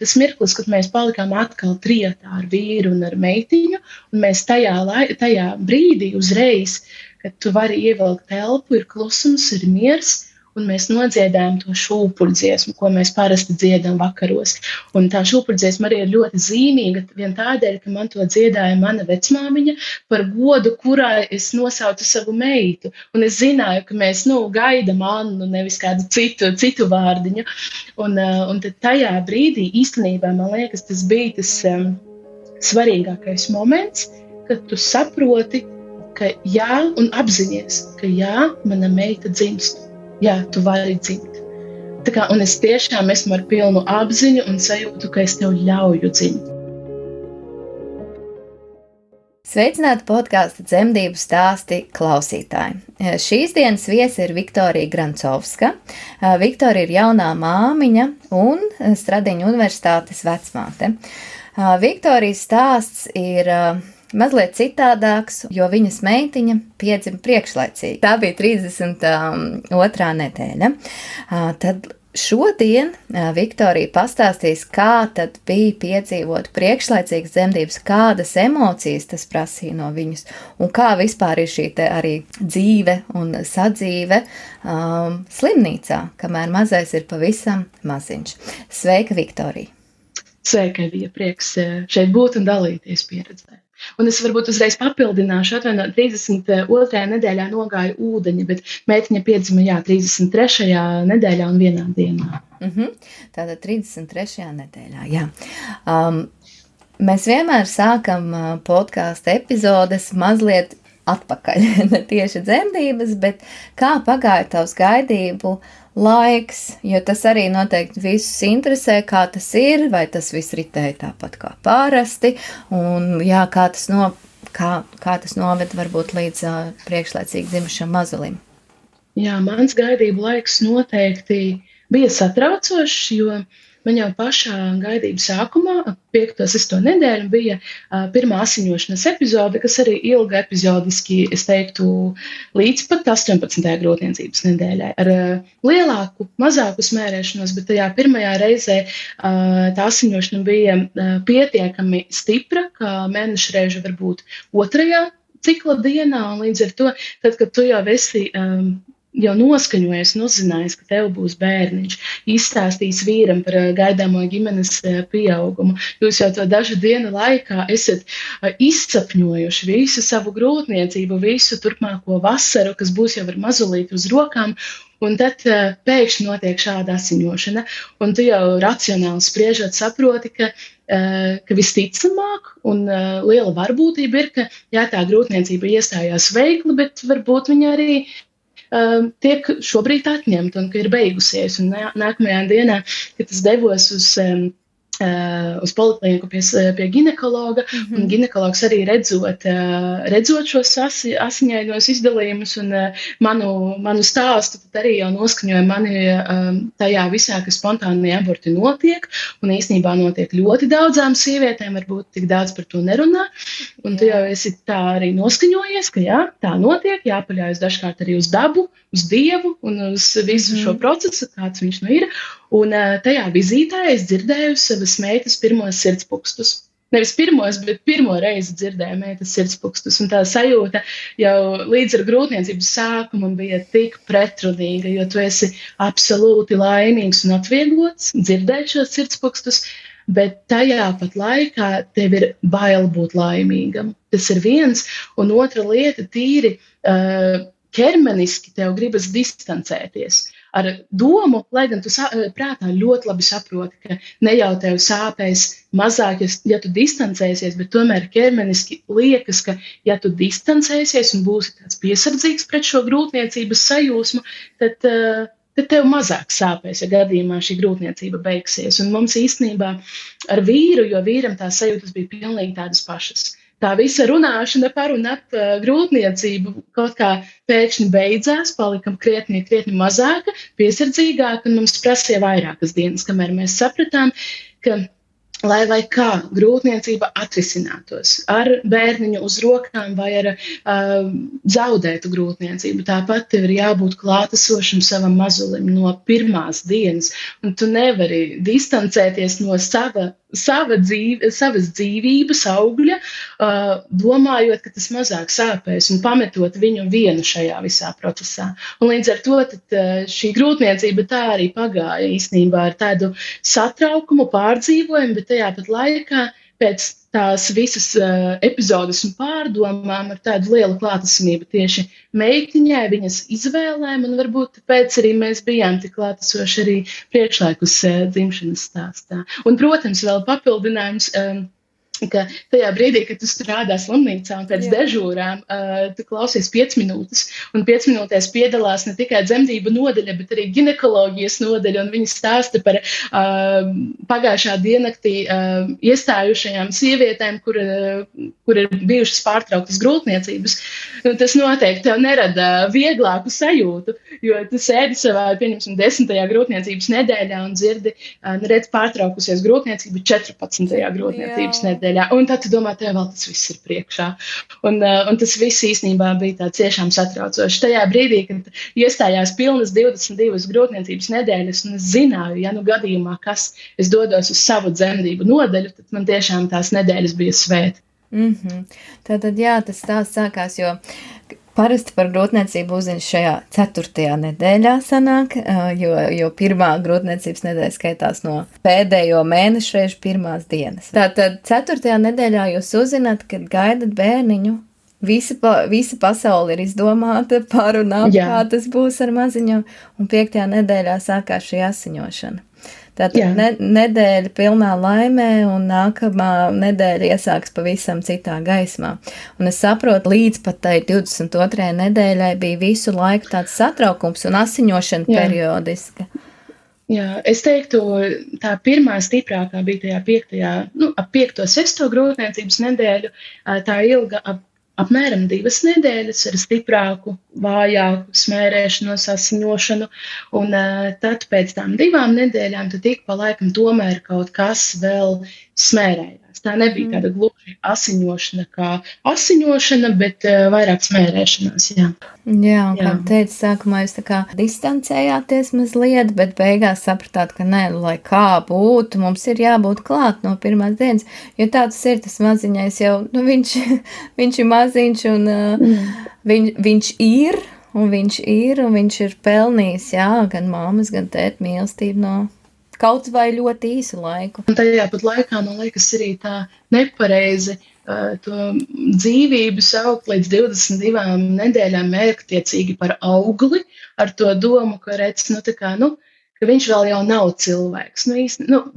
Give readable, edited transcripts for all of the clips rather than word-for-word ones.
tas mirklis, kad mēs palikām atkal trijotā ar vīru un ar meitiņu, un mēs tajā brīdī uzreiz, kad tu vari ievilkt elpu, ir klusums, ir miers, un mēs nodziedājam to šūpuļdziesmu, ko mēs parasti dziedam vakaros. Un tā šūpuļdziesma arī ir ļoti zīmīga, vien tādēļ, ka man to dziedāja mana vecmāmiņa par godu, kurai es nosaucu savu meitu. Un es zināju, ka mēs, gaidam Annu, nevis kādu citu vārdiņu. Un tad tajā brīdī īstenībā, man liekas, tas bija tas svarīgākais moments, kad tu saproti, ka jā, un apzinies, ka jā, mana meita dzimst. Jā, tu vari dzimt. Un es tiešām esmu ar pilnu apziņu un sajūtu, ka es tev ļauju dzimt. Sveicināti podkāsta Dzemdību stāsti klausītāji. Šīs dienas viesi ir Viktorija Grancovska. Viktorija ir jaunā māmiņa un Stradiņu universitātes vecmāte. Viktorijas stāsts ir mazliet citādāks, jo viņas meitiņa piedzima priekšlaicīgi. Tā bija 32. nedēļa. Tad šodien Viktorija pastāstīs, kā tad bija piedzīvot priekšlaicīgas dzemdības, kādas emocijas tas prasīja no viņas, un kā vispār ir šī te arī dzīve un sadzīve slimnīcā, kamēr mazais ir pavisam maziņš. Sveika, Viktorija! Sveika, bija prieks šeit būt un dalīties pieredzē. Un es varbūt uzreiz papildināšu, 32. nedēļā nogāja ūdeņi, bet meitiņa piedzima, 33. nedēļā un vienā dienā. Tātad 33. nedēļā, jā. Mēs vienmēr sākam podkāstu epizodes mazliet atpakaļ, ne tieši dzemdības, bet kā pagāja tavs gaidību laiks, jo tas arī noteikti visus interesē, kā tas ir, vai tas viss ritēja tāpat kā parasti, un kā tas noved varbūt līdz priekšlaicīgi dzimušam mazulim. Jā, mans gaidību laiks noteikti bija satraucošs, jo man jau pašā gaidības sākumā, 5. 6. nedēļu, bija pirmā asiņošanas epizode, kas arī ilga epizodiski, es teiktu, līdz pat 18. grūtniecības nedēļai. Ar lielāku, mazāku smērēšanos, bet tajā pirmajā reizē tā asiņošana bija pietiekami stipra, kā mēneša reiža varbūt 2. cikla dienā, un līdz ar to, tad, kad tu jau esi jau noskaņojies un uzzinājis, ka tev būs bērniņš, izstāstījis vīram par gaidāmo ģimenes pieaugumu. Jūs jau to dažu dienu laikā esat izsapņojuši visu savu grūtniecību, visu turpmāko vasaru, kas būs jau ar mazulīti uz rokām, un tad pēkšņi notiek šāda asiņošana, un tu jau racionāli spriežot saproti, ka visticamāk un liela varbūtība ir, ka tā grūtniecība iestājās veikli, bet varbūt viņa arī tiek šobrīd atņemta un ka ir beigusies. Un nākamajā dienā, kad es devos uz polikliniku pie ginekologa, un ginekologs arī redzot šos asiņainos izdalījumus un manu stāstu, tad arī jau noskaņoja mani tajā visā, ka spontānie aborti notiek, un īstenībā notiek ļoti daudzām sievietēm, varbūt tik daudz par to nerunā, un tu jau esi tā arī noskaņojies, ka jā, tā notiek, jāpaļaujas dažkārt arī uz dabu, uz Dievu un uz visu šo procesu, kāds viņš ir. Un tajā vizītē es dzirdēju savas meitas pirmos sirdspūkstus. Nevis pirmos, bet pirmo reizi dzirdēju meitas sirdspūkstus. Un tā sajūta jau līdz ar grūtniecības sākumu bija tik pretrunīga, jo tu esi absolūti laimīgs un atvieglots dzirdēt šos sirdspūkstus, bet tajā pat laikā tev ir bail būt laimīgam. Tas ir viens, un otra lieta tīri ķermeniski tev gribas distancēties ar domu, lai gan tu prātā ļoti labi saproti, ka ne jau tev sāpēs mazāk, ja tu distancēsies, bet tomēr ķermeniski liekas, ka ja tu distancēsies un būsi tāds piesardzīgs pret šo grūtniecības sajūsmu, tad tev mazāk sāpēs, ja gadījumā šī grūtniecība beigsies. Un mums īstenībā ar vīru, jo vīram tās sajūtas bija pilnīgi tādas pašas. Tā visa runāšana par un ap grūtniecību kaut kā pēkšņi beidzās, palikam krietni mazāka, piesardzīgāka, un mums prasīja vairākas dienas, kamēr mēs sapratām, ka lai kā grūtniecība atrisinātos ar bērniņu uz rokām vai ar zaudētu grūtniecību. Tāpat tev ir jābūt klātesošam savam mazulim no pirmās dienas, un tu nevari distancēties no savas dzīvības augļa, domājot, ka tas mazāk sāpēs un pametot viņu vienu šajā visā procesā. Un līdz ar to šī grūtniecība tā arī pagāja īstenībā ar tādu satraukumu, pārdzīvojumu, bet tajā pat laikā pēc tās visas epizodes un pārdomām ar tādu lielu klātesamību tieši meitiņai, viņas izvēlēm, un varbūt tāpēc arī mēs bijām tik klātesoši arī priekšlaikus dzimšanas stāstā. Un, protams, vēl papildinājums, ka tajā brīdī, kad tu strādā slimnīcā un pēc dežūrām, tu klausies 5 minūtes, un 5 minūtēs piedalās ne tikai dzemdību nodaļa, bet arī ginekoloģijas nodaļa, un viņi stāsta par pagājušā diennaktī iestājušajām sievietēm, kur ir bijušas pārtrauktas grūtniecības. Un tas noteikti tev nerada vieglāku sajūtu, jo tu sēdi savā, pieņemsim, 10. grūtniecības nedēļā un dzirdi, redz pārtraukusies grūtniecība 14. grūtniecības nedēļā. Un tad tu domā, tev vēl tas viss ir priekšā. Un tas viss īstenībā bija tā ciešām satraucoši. Tajā brīdī, kad iestājās pilnas 22 grūtniecības nedēļas, un es zināju, ja nu gadījumā, kas es dodos uz savu dzemdību nodaļu, tad man tiešām tās nedēļas bija svēti. Tātad, jā, tas stāsts sākās, jo parasti par grūtniecību uzzina šajā 4. nedēļā sanāk, jo pirmā grūtniecības nedēļa skaitās no pēdējo mēnešu reižu pirmās dienas. Tātad 4. nedēļā jūs uzzināt, kad gaidat bērniņu, visa pasaule ir izdomāta par un ap, kā tas būs ar maziņu, un 5. nedēļā sākās šī asiņošana. Tātad nedēļa pilnā laimē, un nākamā nedēļa iesāks pavisam citā gaismā. Un es saprotu, līdz pat tai 22. nedēļai bija visu laiku tāds satraukums un asiņošana periodiska. Jā, es teiktu, tā pirmā stiprākā bija tajā 5. 6. grūtniecības nedēļu, tā ilga apmēram 2 nedēļas ar stiprāku, vājāku smērēšanos, asiņošanu, un tad pēc tām 2 nedēļām tad ik pa laikam tomēr kaut kas vēl smērējās. Tā nebija tāda gluži asiņošana kā asiņošana, bet vairāk smērēšanās, jā. Jā, un kā teicu, sākumā jūs tā kā distancējāties mazliet, bet beigās sapratāt, ka nē, lai kā būtu, mums ir jābūt klāt no pirmās dienas, jo tā tas ir, tas maziņais jau, viņš ir maziņš, un viņš ir, un viņš ir pelnījis, jā, gan mammas, gan tēt mīlestību no kaut vai ļoti īsu laiku. Un tajā pat laikā, man liekas, arī tā nepareizi to dzīvību saukt līdz 22 nedēļām mērķtiecīgi par augli, ar to domu, ka redz, ka viņš vēl jau nav cilvēks.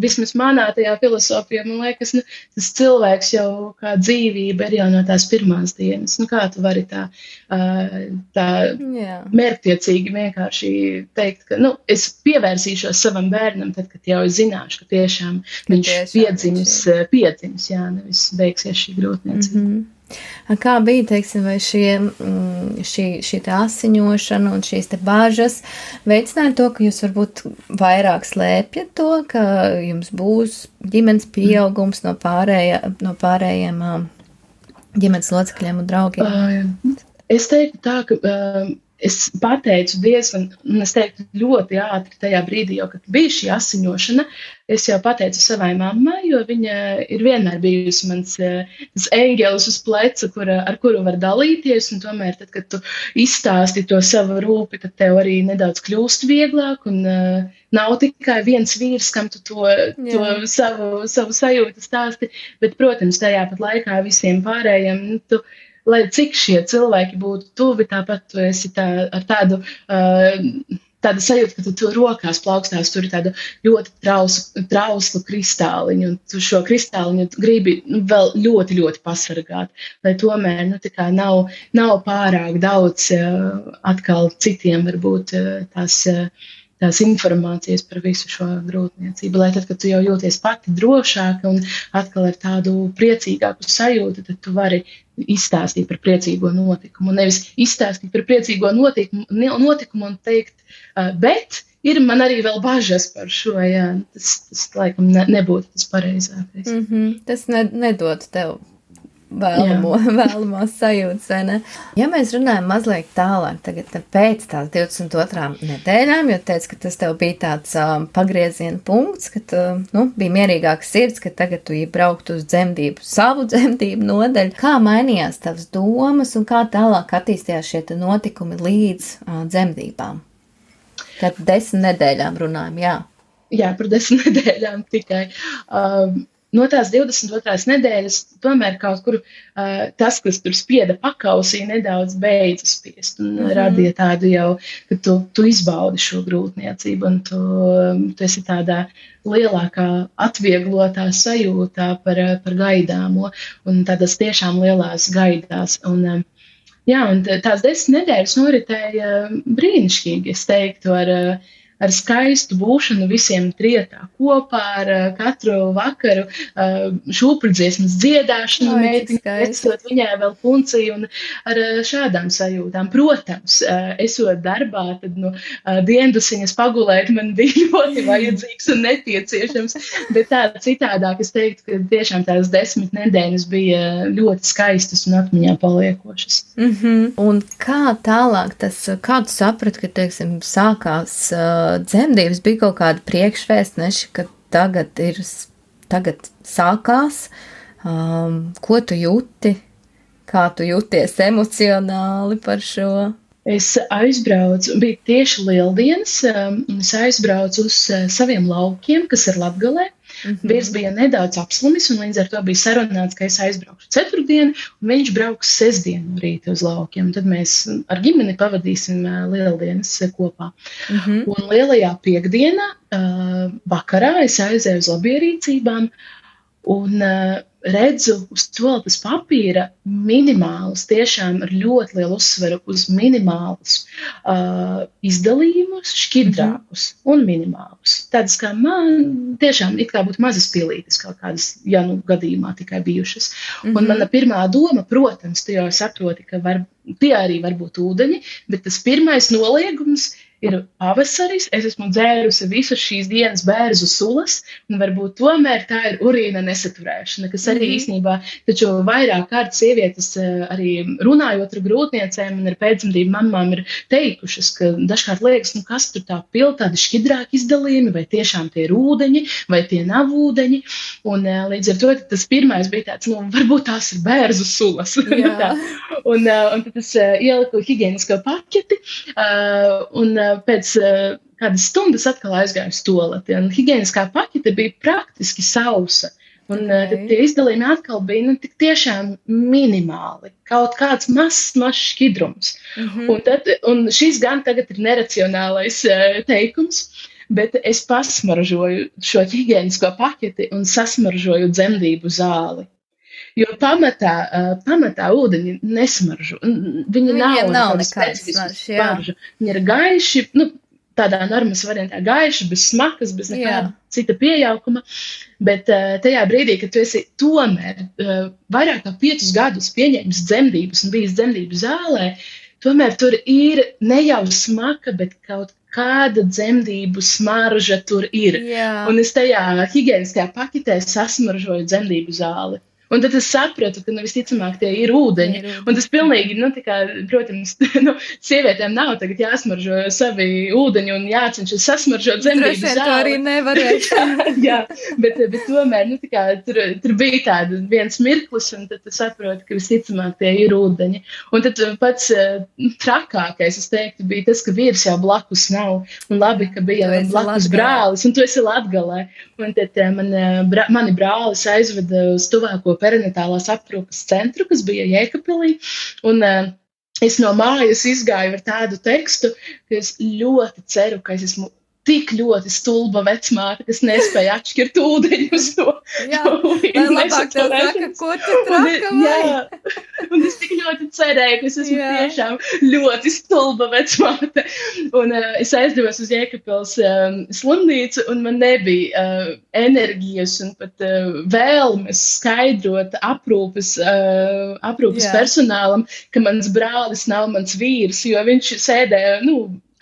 Vismaz manā tajā filosofijā, man liekas, tas cilvēks jau kā dzīvība ir jau no tās pirmās dienas. Kā tu vari tā mērķtiecīgi vienkārši teikt, ka es pievērsīšos savam bērnam, tad, kad jau es zināšu, ka tiešām viņš piedzims, nevis beigsies šī grūtniecība. Kā bija, teiksim, vai šī asiņošana un šīs te bāžas veicināja to, ka jūs varbūt vairāk slēpjat to, ka jums būs ģimenes pieaugums no pārējiem ģimenes locekļiem un draugiem? Es teiktu tā, ka es pateicu diezgan, un es teiktu ļoti ātri tajā brīdī, jau, kad bija šī asiņošana, es jau pateicu savai mammai, jo viņa ir vienmēr bijusi mans eņģelis uz pleca, ar kuru var dalīties, un tomēr tad, kad tu izstāsti to savu rūpi, tad tev arī nedaudz kļūst vieglāk, un nav tikai viens vīrs, kam tu to savu sajūtu stāsti, bet, protams, tajā pat laikā visiem pārējiem, lai cik šie cilvēki būtu tuvi, tāpat tu esi ar tādu sajūtu, ka tu rokās plaukstās, tur ir tāda ļoti trauslu kristāliņu, un tu šo kristāliņu gribi vēl ļoti, ļoti pasargāt, lai tomēr nav pārāk daudz atkal citiem varbūt tās tās informācijas par visu šo grūtniecību, lai tad, kad tu jau jūties pati drošāka un atkal ar tādu priecīgāku sajūtu, tad tu vari izstāstīt par priecīgo notikumu. Nevis izstāstīt par priecīgo notikumu un teikt, bet ir man arī vēl bažas par šo, jā, tas laikam nebūtu tas pareizākais. Tas nedod tev vēlamās sajūtas, vai ne? Ja mēs runājam mazliet tālāk, tagad pēc tās 22. nedēļām, jo teicu, ka tas tev bija tāds pagrieziena punkts, ka bija mierīgāks sirds, ka tagad tu braukt uz savu dzemdību nodaļu. Kā mainījās tavas domas un kā tālāk attīstījās šie notikumi līdz dzemdībām? Tad 10 nedēļām runājam, jā. Jā, par 10 nedēļām tikai. No tās 22. nedēļas tomēr kaut kur tas, kas tur spieda pakausī, nedaudz beidza spiest un radīja tādu jau, ka tu izbaudi šo grūtniecību un tu esi tādā lielākā atvieglotā sajūtā par gaidāmo un tādas tiešām lielās gaidās. Un tās 10 nedēļas noritēja brīnišķīgi, es teiktu, ar skaistu būšanu visiem trietā kopā, ar katru vakaru šūpuļdziesmas dziedāšanu, meitiņu, viņai vēl punciju un ar šādām sajūtām. Protams, esot darbā, tad diendusiņas pagulēt man bija ļoti vajadzīgs un nepieciešams, bet tā citādāk es teiktu, ka tiešām tās 10 nedēļas bija ļoti skaistas un atmiņā paliekošas. Un kā tālāk kā tu saprati, ka, teiksim, sākās dzemdības, bija kaut kāda priekšvēstneši, ka tagad sākās, ko tu jūti, kā tu jūties emocionāli par šo? Es aizbraucu, bija tieši Lieldienas, un es aizbraucu uz saviem laukiem, kas ir Latgalē. Vīrs bija nedaudz apslimis, un līdz ar to bija sarunāts, ka es aizbraukšu ceturtdienu, un viņš brauks sestdienu rīta uz laukiem. Tad mēs ar ģimeni pavadīsim Lieldienas kopā. Un lielajā piekdienā vakarā es aizēju uz labierīcībām un redzu uz toaletes papīra minimālus, tiešām ar ļoti lielu uzsveru uz minimālus izdalījumus, šķidrākus un minimālus. Tādas kā man tiešām it kā būtu mazas pilītes kaut kādas, ja gadījumā tikai bijušas. Un mana pirmā doma, protams, tu jau saproti, ka tie arī var būt ūdeņi, bet tas pirmais noliegums ir pavasaris, es esmu dzērusi visas šīs dienas bērzu sulas, un varbūt tomēr tā ir urīna nesaturēšana, kas arī īstenībā, taču vairāk kārt sievietes arī runājot ar grūtniecēm un ar pēcdzemdību mamām ir teikušas, ka dažkārt liekas, kas tur tā pil, tādi šķidrāki izdalījumi, vai tiešām tie ir ūdeņi, vai tie nav ūdeņi, un līdz ar to tas pirmais bija tāds, varbūt tās ir bērzu sulas. un tad es ieliku higienisko paķeti, un pēc kādas stundas atkal aizgāju uz toaleti, un higieniskā paķete bija praktiski sausa. Un tad tie izdalījumi atkal bija tik tiešām minimāli, kaut kāds mazs šķidrums. Un šis gan tagad ir neracionālais teikums, bet es pasmaržoju šo higienisko paķeti un sasmaržoju dzemdību zāli. Jo pamatā ūdeņi nesmaržo. Viņi nav specifiski smaržu. Viņi ir gaiši, tādā normas variantā gaiši, bez smakas, bez nekāda cita piejaukuma. Bet tajā brīdī, kad tu esi tomēr vairāk kā 5 gadus pieņēmis dzemdības un bijis dzemdību zālē, tomēr tur ir ne jau smaka, bet kaut kāda dzemdību smarža tur ir. Un es tajā higieniskajā paketē sasmaržoju dzemdību zāli. Un tad es sapratu, ka visticamāk tie ir ūdeņi. Un tas pilnīgi, protams, sievietēm nav tagad jāsmaržo savi ūdeņi un jācenšas sasmaržot dzemdību zāli. To arī nevarēšu. Jā, bet tomēr, tur bija tāda viens mirklis, un tad tu saproti, ka visticamāk tie ir ūdeņi. Un tad pats trakākais, es teiktu, bija tas, ka vīrs jau blakus nav. Un labi, ka bija blakus brālis, un tu esi Latgalē. Un tad mani brālis aizveda uz tuvāko perinatālās aprūpes centru, kas bija Jēkabpilī, un es no mājas izgāju ar tādu tekstu, ka es ļoti ceru, ka es esmu tik ļoti stulba vecmāte, kas nespēja atšķirt ūdeņus no labāk tev saka, ko tu traka vai? Un es tik ļoti cerēju, ka es esmu tiešām ļoti stulba vecmāte. Un es aizdevos uz Jēkabpils slimnīcu, un man nebija enerģijas un pat vēlmes skaidrot aprūpes personālam, ka mans brālis nav mans vīrs, jo viņš sēdēja,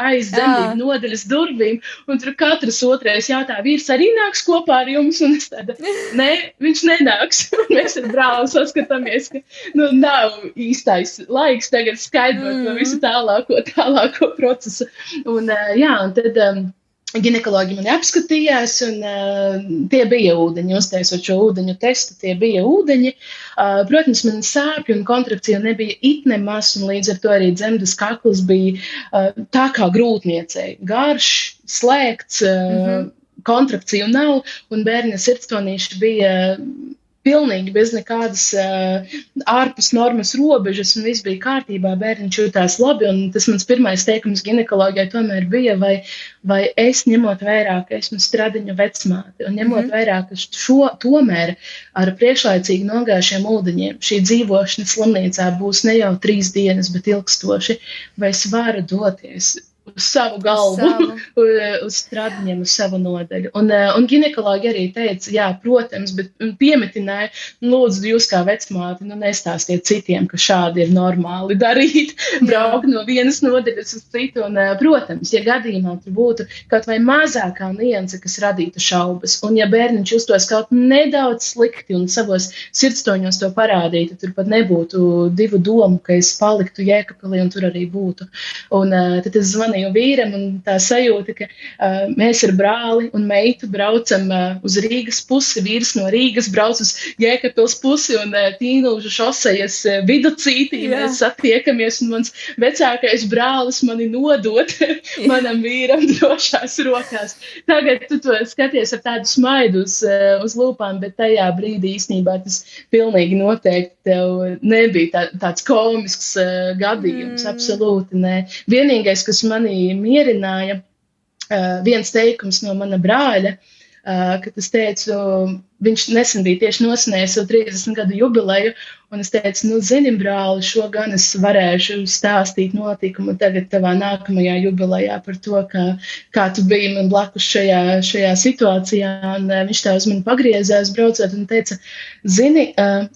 aiz dzemdību nodaļas durvīm, un tur katrs otrais jautā, vīrs arī nāks kopā ar jums, un es tāda, nē, viņš nenāks. Mēs ar brāli saskatāmies, ka nav īstais laiks tagad skaidrot to visu tālāko procesu. Un un tad ginekologi mani apskatījās, un tie bija ūdeņi, uztaisot šo ūdeņu testu, tie bija ūdeņi. Protams, man sāpju un kontrakcija nebija it nemaz, un līdz ar to arī dzemdas kakls bija tā kā grūtniecei. Garš, slēgts, kontrakciju nav, un bērna sirdstonīši bija pilnīgi bez nekādas ārpus normas robežas, un viss bija kārtībā, bērniņš jūtās labi, un tas mans pirmais teikums ginekoloģijai tomēr bija, vai es ņemot vērā, ka esmu stradiņu vecmāte, un ņemot vērā, ka tomēr ar priekšlaicīgi nogājušiem ūdeņiem šī dzīvošana slimnīcā būs ne jau 3 dienas, bet ilgstoši, vai es varu doties uz savu galvu, uz stradiņiem, uz savu nodaļu. Un ginekologi arī teica, jā, protams, bet piemetināja, lūdzu, jūs kā vecmāti, nestāstiet citiem, ka šādi ir normāli darīt, braukt no vienas nodaļas uz citu. Un, protams, ja gadījumā tur būtu kaut vai mazākā nianse, kas radītu šaubas, un ja bērniņš justos kaut nedaudz slikti un savos sirdstoņos to parādītu, tur pat nebūtu 2 domu, ka es paliktu Jēkabpilī un tur arī būtu. Un tad es zvanīju vīram, un tā sajūta, ka mēs ar brāli un meitu braucam uz Rīgas pusi, vīrs no Rīgas brauc uz Jēkabpils pusi, un Tīnūžu šosejas viducītī mēs satiekamies, un mans vecākais brālis mani nodot manam vīram drošās rokās. Tagad tu to skaties ar tādu smaidu uz lūpām, bet tajā brīdī īstenībā tas pilnīgi noteikti tev nebija tāds komisks gadījums, absolūti nē. Vienīgais, kas mani mierināja, viens teikums no mana brāļa, kad es teicu, viņš nesen bija tieši nosinējis savu 30 gadu jubileju, un es teicu, zini, brāli, šo gan es varēšu stāstīt notikumu tagad tavā nākamajā jubilejā par to, kā tu biji man blakus šajā situācijā, un viņš tā uz mani pagriezās braucot un teica, zini,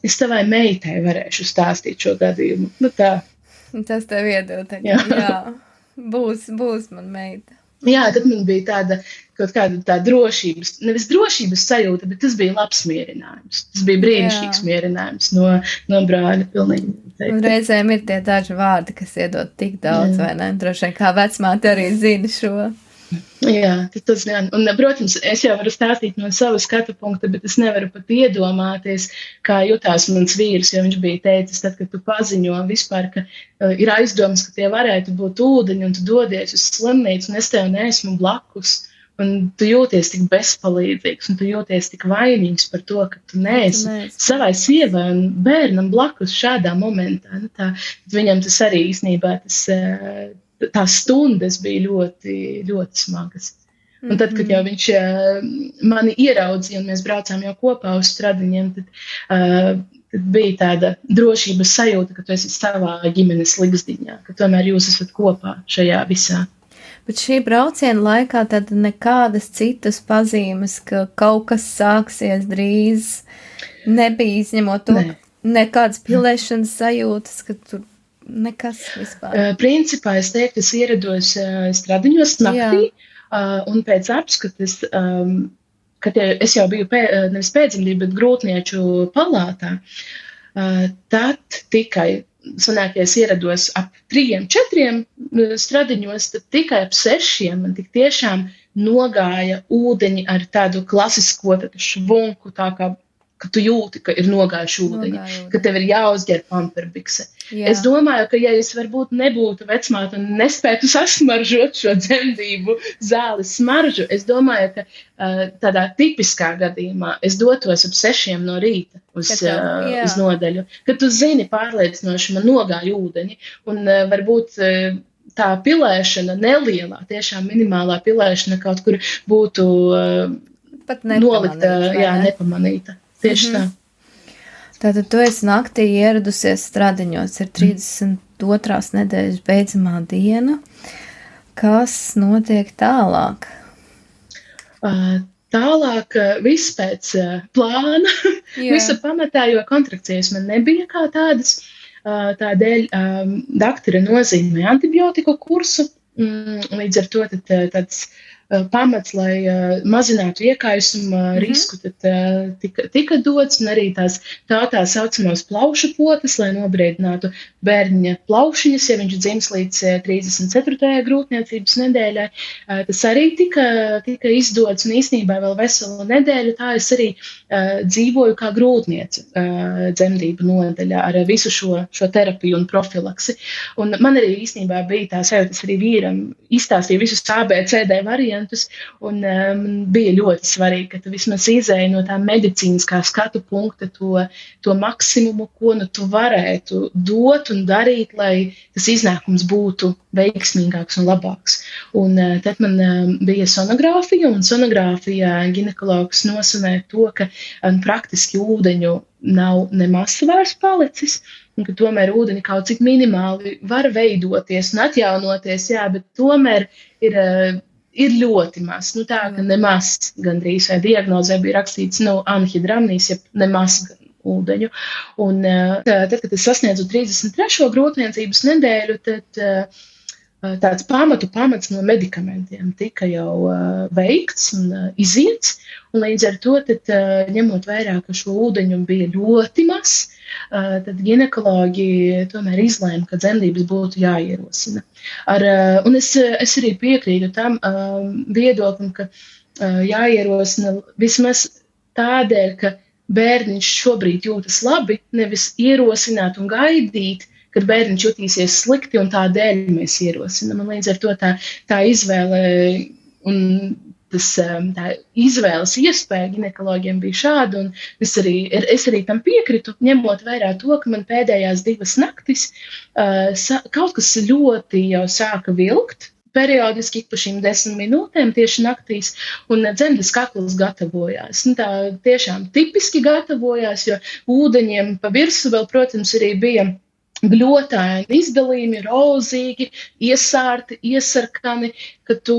es tavai meitai varēšu stāstīt šo gadījumu. Tā. Tas tev iedod tagad, jā. Būs man meita. Jā, tad man bija kaut kāda tā drošības, nevis drošības sajūta, bet tas bija labs mierinājums. Tas bija brīnišķīgs mierinājums no brāļa pilnīgi. Un reizēm ir tie daži vārdi, kas iedod tik daudz, vai ne? Droši vien kā vecmāte arī zina šo. Jā, tas gan. Un, protams, es jau varu stāstīt no sava skatu punkta, bet es nevaru pat iedomāties, kā jutās mans vīrs, jo viņš bija teicis, tad, kad tu paziņo vispār, ka ir aizdomas, ka tie varētu būt ūdeņi, un tu dodies uz slimnīcu, un es tev neesmu blakus, un tu jūties tik bezpalīdzīgs, un tu jūties tik vainīgs par to, ka tu neesi savai sievai un bērnam blakus šādā momentā. Viņam tas arī īstenībā tās stundas bija ļoti, ļoti smagas. Un tad, kad jau viņš mani ieraudzīja un mēs braucām jau kopā uz stradiņiem, tad bija tāda drošības sajūta, ka tu esi savā ģimenes ligzdiņā, ka tomēr jūs esat kopā šajā visā. Bet šī brauciena laikā tad nekādas citas pazīmes, ka kaut kas sāksies drīz, nebija izņemot to, nekādas pilēšanas sajūtas, ka tur nekas vispār. Principā es teiktu, es ierados stradiņos naktī, un pēc apskates, kad es jau biju nevis pēcdzemdību, bet grūtnieču palātā, tad tikai sanāk, ja es ierados ap 3-4 stradiņos, tad tikai ap 6 man tik tiešām nogāja ūdeņi ar tādu klasisko švunku, tā kā ka tu jūti, ka ir nogājuši ūdeņi, ka tev ir jāuzģer pamperbikse. Es domāju, ka ja es varbūt nebūtu vecmāte un nespētu sasmaržot šo dzemdību zāles smaržu, es domāju, ka tādā tipiskā gadījumā es dotos ap 6 no rīta uz nodaļu, kad tu zini pārliecinoši man nogāja ūdeņi un varbūt tā pilēšana nelielā, tiešām minimālā pilēšana kaut kur būtu pat nolikta, nepamanīta. Nepamanīta. Tieši tā. Tātad tu esi naktī ieradusies Stradiņos, ir 32. nedēļas beidzamā diena. Kas notiek tālāk? Tālāk viss pēc plāna, visa pamatā, jo kontrakcijas man nebija kā tādas. Tādēļ daktore nozīmē antibiotiku kursu, līdz ar to tāds pamats, lai mazinātu iekaisuma risku, tad tika dots, un arī tā saucamās plaušu potes, lai nobriedinātu bērniņa plaušiņas, ja viņš dzims līdz 34. grūtniecības nedēļai. Tas arī tika izdots, un īstenībā vēl veselu nedēļu tā es arī dzīvoju kā grūtniece dzemdību nodaļā ar visu šo terapiju un profilaksi. Un man arī īstenībā bija tā sajūta, es arī vīram izstāstīju visus ABCD variantus, un bija ļoti svarīgi, ka tu vismaz izēji no tā medicīniskā skatu punkta to maksimumu, ko nu tu varētu dot un darīt, lai tas iznākums būtu veiksmīgāks un labāks. Un tad man bija sonogrāfija, un sonogrāfijā ginekologs nosanēja to, ka praktiski ūdeņu nav nemaz vairs palicis, un ka tomēr ūdeņi kaut cik minimāli var veidoties un atjaunoties, jā, bet tomēr ir ļoti maz. Nu tā, ka nemaz gandrīz vai diagnozē bija rakstīts anhidramnijas, ja nemaz ūdeņu. Un tad, kad es sasniedzu 33. grūtniecības nedēļu, tad tāds pamats no medikamentiem tika jau veikts un iziets, un līdz ar to, tad, ņemot vērā, ka šo ūdeņu bija ļoti maz, tad ginekologi tomēr izlēma, ka dzemdības būtu jāierosina. Un es arī piekrītu tam viedoklim, ka jāierosina vismaz tādēļ, ka bērniņš šobrīd jūtas labi, nevis ierosināt un gaidīt, kad bērniņš jutīsies slikti, un tādēļ mēs ierosinām. Un līdz ar to tā izvēle un tā izvēles iespēja ginekologiem bija šāda, un es arī tam piekritu, ņemot vērā to, ka man pēdējās 2 naktis kaut kas ļoti jau sāka vilkt, periodiski ik pa šīm 10 minūtēm tieši naktīs, un dzemdes kakls gatavojās. Tā tiešām tipiski gatavojās, jo ūdeņiem pa virsu vēl, protams, arī bija gļotāji, izdalījumi, rozīgi, iesārti, iesarkani, ka tu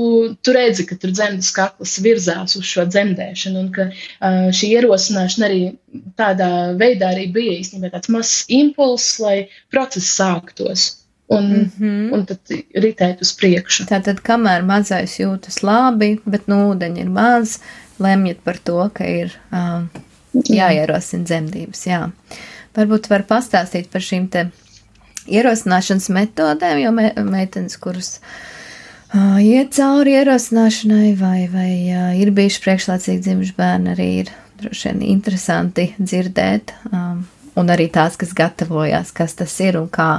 redzi, ka tur dzemdes kakls virzās uz šo dzemdēšanu, un ka šī ierosināšana arī tādā veidā arī bija īstenībā tāds mazs impulss, lai process sāktos. Un tad ritēt uz priekšu. Tātad, kamēr mazais jūtas labi, bet ūdeņi ir maz, lemjat par to, ka ir jāierosina dzemdības. Jā. Varbūt var pastāstīt par šīm te ierosināšanas metodēm, jo meitenes, kuras iet cauri ierosināšanai vai ir bijuši priekšlaicīgi dzimuši bērni, arī ir droši vien interesanti dzirdēt, un arī tās, kas gatavojās, kas tas ir un kā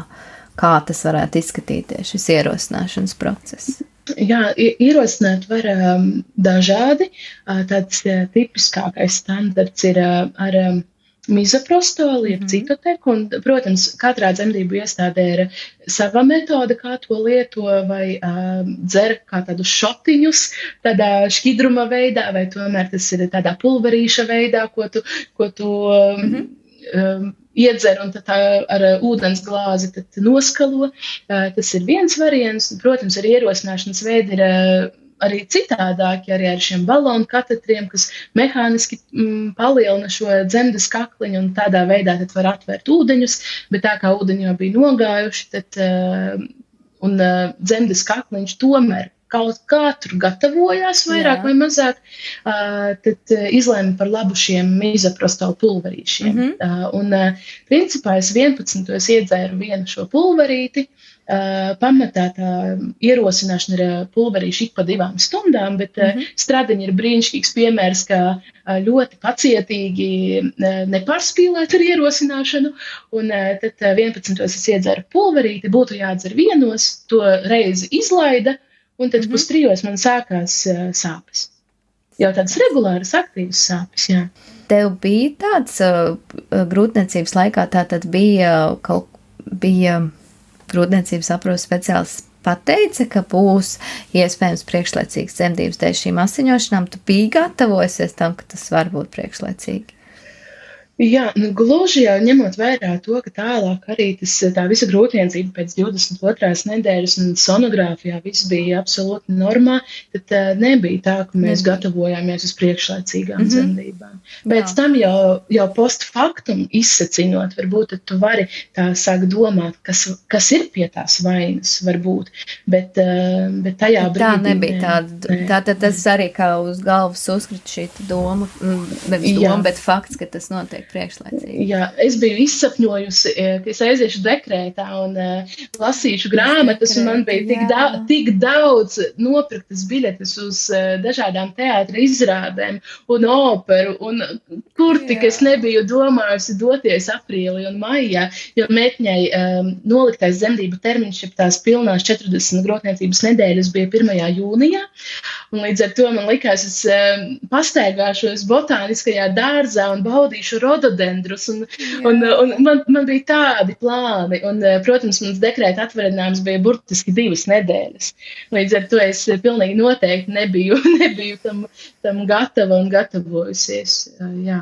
tas varētu izskatīties, šis ierosināšanas process. Jā, ierosināt var dažādi. Tāds tipiskākais standarts ir ar mizaprostolu, jeb citoteku, un, protams, katrā dzemdību iestādē ir sava metode, kā to lieto, vai dzer kā tādus šotiņus, tādā šķidruma veidā, vai tomēr tas ir tādā pulverīša veidā, ko tu iedzer un tad ar ūdens glāzi tad noskalo. Tas ir viens variants. Protams, arī ierosināšanas veidi ir arī citādāki, arī ar šiem balonu katetriem, kas mehāniski palielina šo dzemdes kakliņu, un tādā veidā tad var atvērt ūdeņus, bet tā kā ūdeņi jau bija nogājuši, tad un dzemdes kakliņš tomēr kaut kā tur gatavojās vairāk vai mazāk, tad izlēma par labu šiem mizaprostolu pulverīšiem. Un principā es 11. iedzēru vienu šo pulverīti. Pamatā tā ierosināšana ir pulverīši ik pa 2 stundām, bet Stradiņi ir brīnišķīgs piemērs, kā ļoti pacietīgi nepārspīlēt ar ierosināšanu, un tad 11. es iedzēru pulverīti, būtu jādzer 1, to reizi izlaida, un tad 2:30 man sākās sāpes. Jau tādas regulāras, aktīvas sāpes, jā. Tev bija tāds grūtniecības laikā, tātad bija grūtniecības aprūpes speciālists pateica, ka būs iespējams priekšlaicīgas dzemdības dēļ šīm asiņošanām, tu biji gatavojusies tam, ka tas var būt priekšlaicīgi? Jā, gluži jau ņemot vērā to, ka tālāk arī tā visa grūtniecība pēc 22. nedēļas un sonogrāfijā viss bija absolūti normā, tad nebija tā, ka mēs gatavojāmies uz priekšlaicīgām dzemdībām. Pēc tam jau post factum izsacinot, varbūt tad tu vari tā sāk domāt, kas ir pie tās vainas, varbūt, bet tajā brīdī... Tā nebija tāda, tātad tas arī kā uz galvas uzkrita šī doma, nevis doma, bet fakts, ka tas notiek priekšlaicīgi. Jā, es biju izsapņojusi, ka es aiziešu dekrētā un lasīšu grāmatas, un man bija tik daudz nopirktas biļetes uz dažādām teātra izrādēm un operu, un kur tik es nebiju domājusi doties aprīlī un maijā, jo meitņai noliktais dzemdību termiņš, ja tās pilnās 40 grotniecības nedēļas bija 1. jūnijā, un līdz ar to man likās, es pastaigāšos botāniskajā dārzā un baudīšu rododendrus, un man bija tādi plāni, un, protams, mans dekrēta atvaļinājums bija burtiski 2 nedēļas. Līdz ar to es pilnīgi noteikti nebiju tam gatava un gatavojusies, jā.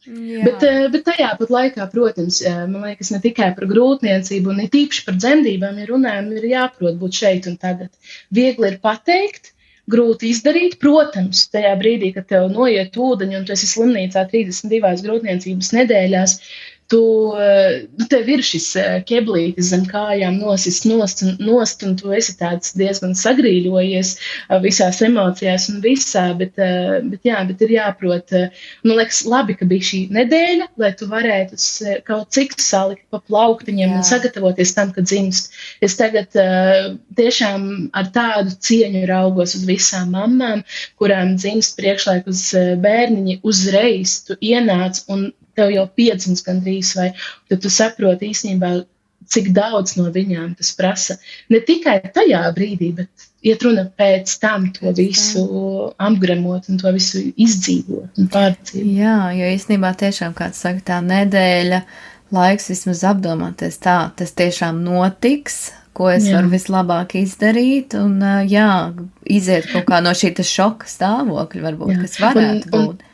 Bet tajā pat laikā, protams, man liekas, ne tikai par grūtniecību, un tīpaši par dzemdībām, ja runājam, ir jāprot būt šeit un tagad. Viegli ir pateikt, grūti izdarīt, protams, tajā brīdī, kad tev noiet ūdeņi un tu esi slimnīcā 32 grūtniecības nedēļās, tev ir šis keblītis zem kājām nosis nost, un tu esi tāds diezgan sagrīļojies visās emocijās un visā, bet ir jāprot, man liekas, labi, ka bija šī nedēļa, lai tu varētu kaut cik salikt pa plauktiņiem un sagatavoties tam, kad dzimst. Es tagad tiešām ar tādu cieņu raugos uz visām mammām, kurām dzimst priekšlaikus bērniņi uzreiz, tu ienāc un tev jau piedzimst gandrīz, vai tad tu saproti īstenībā, cik daudz no viņām tas prasa. Ne tikai tajā brīdī, bet iet runa pēc tam to visu apgremot un to visu izdzīvot un pārdzīvot. Jā, jo īstenībā tiešām, kāds saka, tā nedēļa laiks vismaz apdomāties tā, tas tiešām notiks, ko es varu vislabāk izdarīt, un iziet kaut kā no šī šoka stāvokļa, varbūt, kas varētu būt.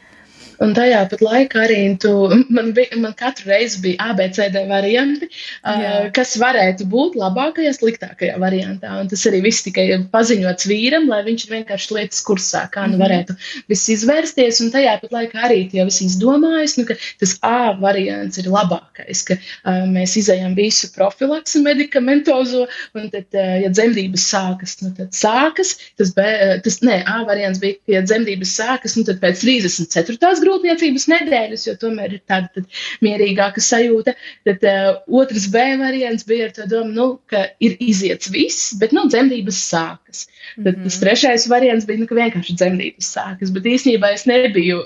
Un tajā pat laikā arī man katru reizi bija ABCD varianti, kas varētu būt labākajā, sliktākajā variantā. Un tas arī viss tikai paziņots vīram, lai viņš vienkārši lietas kursā, kā varētu viss izvērsties. Un tajā pat laikā arī tie visi izdomājas, ka tas A variants ir labākais, ka mēs izejam visu profilaksi medikamentozo, un tad, ja dzemdības sākas, tad sākas. A variants bija, ka ja dzemdības sākas, tad pēc 34. grūtniecības nedēļas, jo tomēr ir tāda mierīgāka sajūta. Tad otrs B variants bija ar to domu, ka ir iziets viss, bet dzemdības sākas. Tad tas trešais variants bija, ka vienkārši dzemdības sākas, bet īstenībā es nebiju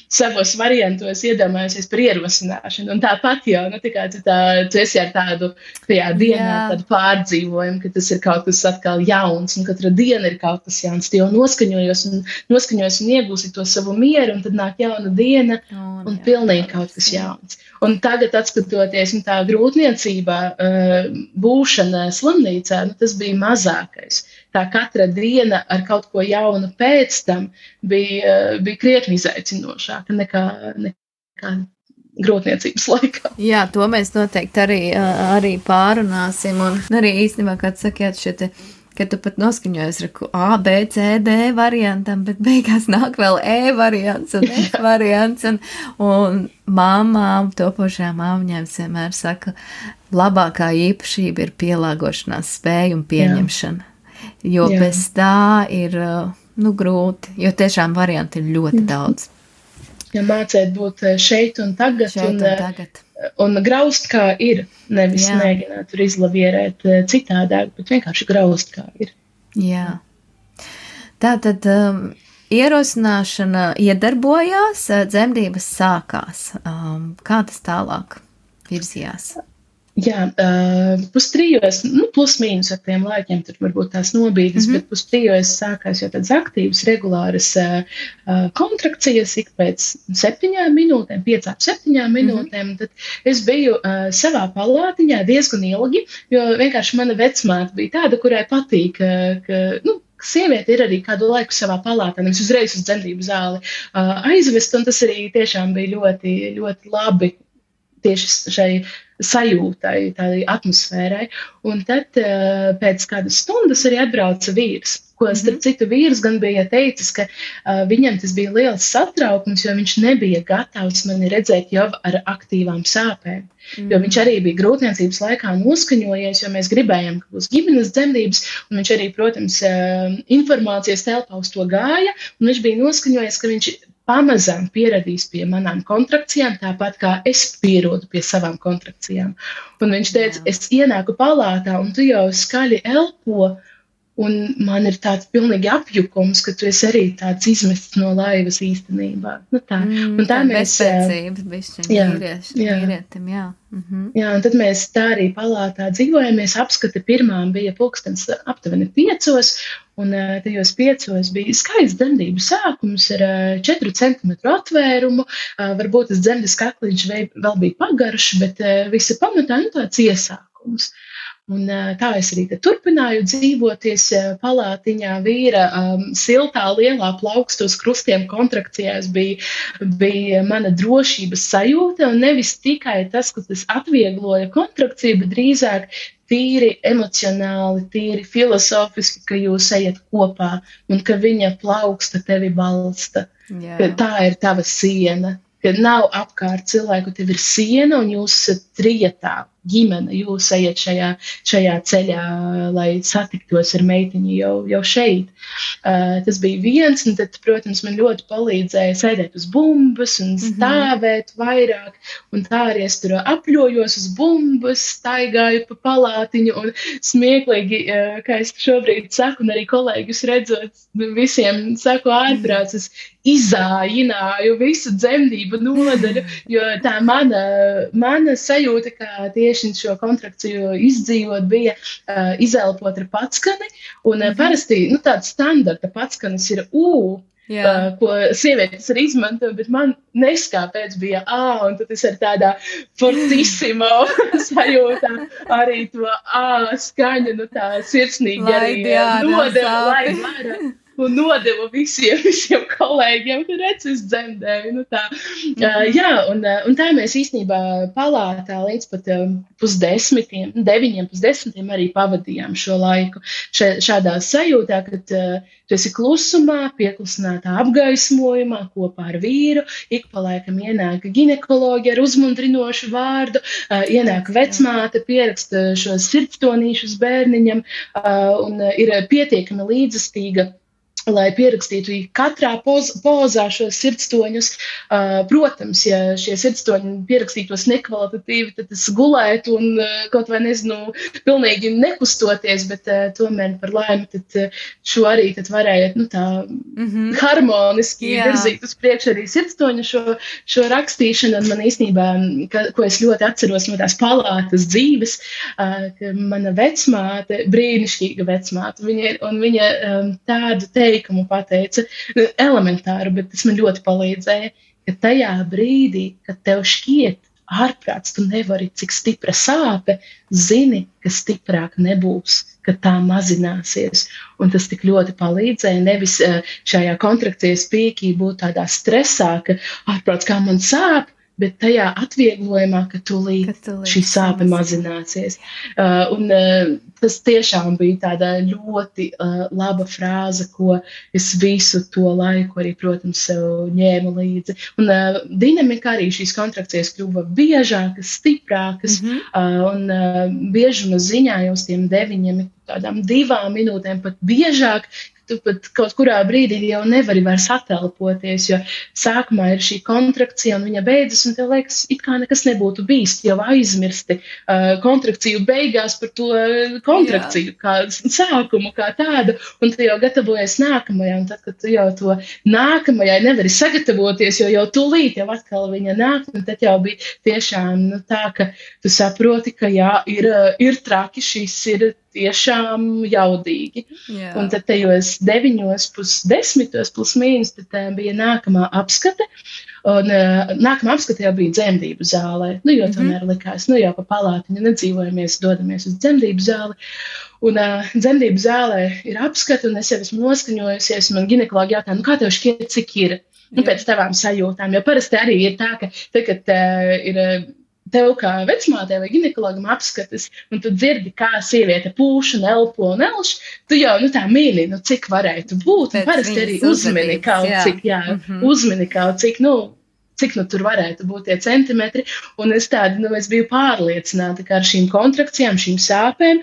savos variantos iedomājusies par ierosināšanu. Un tāpat jau, tu esi ar tādu tajā dienā tādu pārdzīvojumu, ka tas ir kaut kas atkal jauns, un katra diena ir kaut kas jauns. Tu jau noskaņojos un iegūsi to savu mieru, un tad nāk jauna diena un pilnīgi kaut kas jauns. Un tagad, atskatoties, tā grūtniecībā būšana slimnīcā, tas bija mazākais. Tā katra diena ar kaut ko jaunu pēc tam bija krietni izaicinošāka nekā grūtniecības laikā. Jā, to mēs noteikti arī pārunāsim. Un arī īstenībā, kā sakiet, ka tu pat noskaņojies ar A, B, C, D variantam, bet beigās nāk vēl E variants un F variants. Un māmām, topošajām māmiņām vienmēr saka, labākā īpašība ir pielāgošanās spēja un pieņemšana. Jo bez tā ir grūti, jo tiešām varianti ir ļoti daudz. Ja mācēt būt šeit un tagad, un graust kā ir, nevis mēģināt tur izlavierēt citādāk, bet vienkārši graust kā ir. Jā. Tātad ierosināšana iedarbojās, dzemdības sākās. Kā tas tālāk virzījās? Jā, pustrijos, plus mīnus ar tiem laikiem, tur varbūt tās nobīdes, bet pustrijos sākās jau tādas aktīvas, regulāras kontrakcijas ik pēc 7 minūtēm, 5-7 minūtēm. Tad es biju savā palātiņā diezgan ilgi, jo vienkārši mana vecmāte bija tāda, kurai patīk, ka sieviete ir arī kādu laiku savā palātā, nevis uzreiz uz dzemdību zāli aizvest, un tas arī tiešām bija ļoti, ļoti labi tieši šai sajūtai, tādai atmosfērai. Un tad pēc kādas stundas arī atbrauca vīrs, ko starp citu vīrs gan bija teicis, ka viņam tas bija liels satraukums, jo viņš nebija gatavs mani redzēt jau ar aktīvām sāpēm. Jo viņš arī bija grūtniecības laikā noskaņojies, jo mēs gribējām, ka būs ģimenes dzemdības, un viņš arī, protams, informācijas telpā uz to gāja, un viņš bija noskaņojies, ka viņš pamazām pieradīs pie manām kontrakcijām, tāpat kā es pierodu pie savām kontrakcijām. Un viņš teica, es ienāku palātā, un tu jau skaļi elpo, un man ir tāds pilnīgi apjukums, ka tu esi arī tāds izmests no laivas īstenībā. Tā. Un tā mēs... vīrietim, jā. Jā, un tad mēs tā arī palātā dzīvojamies. Apskata pirmām bija pulkstens aptuveni 5, un tajos 5 bija skaists dzemdību sākums ar 4 centimetru atvērumu. Varbūt tas dzemdes kakliņš vēl bija pagarš, bet visa pamatā tāds iesākums. Un tā es arī turpināju dzīvoties palātiņā. Vīra siltā, lielā plaukstos krustiem kontrakcijās bija mana drošības sajūta, un nevis tikai tas, ka tas atviegloja kontrakciju, bet drīzāk tīri emocionāli, tīri filozofiski, ka jūs ejat kopā un ka viņa plauksta tevi balsta. Ka tā ir tava siena, ka nav apkārt cilvēku, tev ir siena un jūs esat trietā. Ģimene, jūs ejat šajā ceļā, lai satiktos ar meitiņu jau šeit. Tas bija viens, un tad, protams, man ļoti palīdzēja sēdēt uz bumbas un stāvēt vairāk, un tā arī es tur apļojos uz bumbas, staigāju pa palātiņu, un smieklīgi, kā es šobrīd saku, un arī kolēģus redzot, visiem saku ārprāts, es izājināju visu dzemdību nodaļu, jo tā mana sajūta, kā tieši šo kontrakciju izdzīvot, bija izelpot ar patskani, un parasti tāds standarta patskanis ir ko sievietes arī izmanto, bet man neskāpēc bija un tad es ar tādā fortissimo sajūtā arī to skaņu, tā sirsnīgi arī nodeva, lai vara. Un nodeva visiem kolēģiem, ka redz, es dzemdēju. Un tā mēs īstenībā palātā līdz pat 9:30 arī pavadījām šo laiku. Šādā sajūtā, kad tu esi klusumā, pieklusinātā apgaismojumā kopā ar vīru, ik pa laikam ienāk ginekoloģi ar uzmundrinošu vārdu, ienāk vecmāte, pieraksta šos sirdstonīšus bērniņam un ir pietiekami līdzestīga, lai pierakstītu katrā pozā šos sirdstoņus. Protams, ja šie sirdstoņi pierakstītos nekvalitatīvi, tad es gulētu un kaut vai nezinu, pilnīgi nekustoties, bet tomēr par laimi tad šo arī tad varēja tā harmoniski virzīt uz priekšu arī sirdstoņu šo rakstīšanu. Un man īstenībā, ko es ļoti atceros no tās palātas dzīves, ka mana vecmāte, brīnišķīga vecmāte, viņa tādu teikumu pateica, elementāru, bet tas man ļoti palīdzēja, ka tajā brīdī, kad tev šķiet ārprāts, tu nevari, cik stipra sāpe, zini, ka stiprāk nebūs, ka tā mazināsies. Un tas tik ļoti palīdzēja, nevis šajā kontrakcijas pīkī būt tādā stresā, ka ārprāts kā man sāp, bet tajā atvieglojumā, ka tūlīt šī sāpe mazināsies. Un tas tiešām bija tāda ļoti laba frāze, ko es visu to laiku arī, protams, sev ņēmu līdzi. Un dinamika arī šīs kontrakcijas kļuva biežākas, stiprākas, un biežuma ziņā jau uz tiem 9, tādām 2 minūtēm pat biežāk, tu pat kaut kurā brīdī jau nevari vairs atelpoties, jo sākumā ir šī kontrakcija un viņa beidzas, un tev liekas, it kā nekas nebūtu bijis, jau aizmirsti kontrakciju beigās par to kontrakciju, kā sākumu, kā tādu, un tu jau gatavojies nākamajai, un tad, kad tu jau to nākamajai nevari sagatavoties, jo jau tūlīt jau atkal viņa nāk, un tad jau bija tiešām tā, ka tu saproti, ka jā, ir traki, šis ir tiešām jaudīgi. Jā. Un tad tajos 9:10 plus mīnus, tad bija nākamā apskate, un nākamā apskate jau bija dzemdību zālē, jo tomēr likās, jau pa palātiņu nedzīvojamies, dodamies uz dzemdību zāli, un dzemdību zālē ir apskate, un es jau esmu noskaņojusies, un man ginekologi jautā, kā tev šķiet, cik ir? Pēc tavām sajūtām, jo parasti arī ir tā, ka tagad ir tev kā vecmātei vai ginekologam apskates, un tu dzirdi, kā sieviete pūš un elpo un elš, tu jau tā mīli, cik varētu būt, un parasti arī uzmini kaut cik, uzmini kaut cik, cik tur varētu būt tie centimetri, un es biju pārliecināta, ka ar šīm kontrakcijām, šīm sāpēm,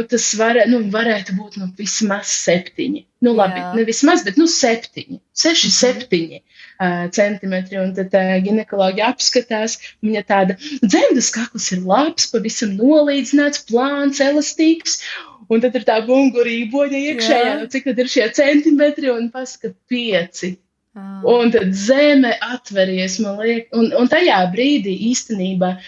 tas varētu būt vismaz 7. Labi, ne vismaz, bet 7. 6-7 centimetri. Un tad ginekologi apskatās, viņa tāda dzemdas kakls ir labs, pavisam nolīdzināts, plāns, elastīgs. Un tad ir tā bungurīboņa iekšējā, cik tad ir šie centimetri, un pasaka 5. Un tad zeme atveries, man liekas, un tajā brīdī īstenībā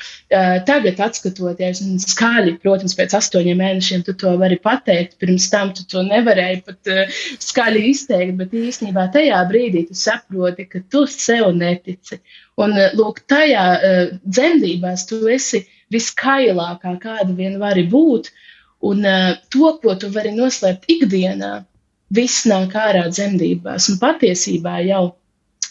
tagad atskatoties, un skaļi, protams, pēc 8 mēnešiem tu to vari pateikt, pirms tam tu to nevarēji pat skaļi izteikt, bet īstenībā tajā brīdī tu saproti, ka tu sev netici. Un lūk, tajā dzemdībās tu esi viskailākā, kāda vien vari būt, un to, ko tu vari noslēpt ikdienā, viss nāk ārā dzemdībās, un patiesībā jau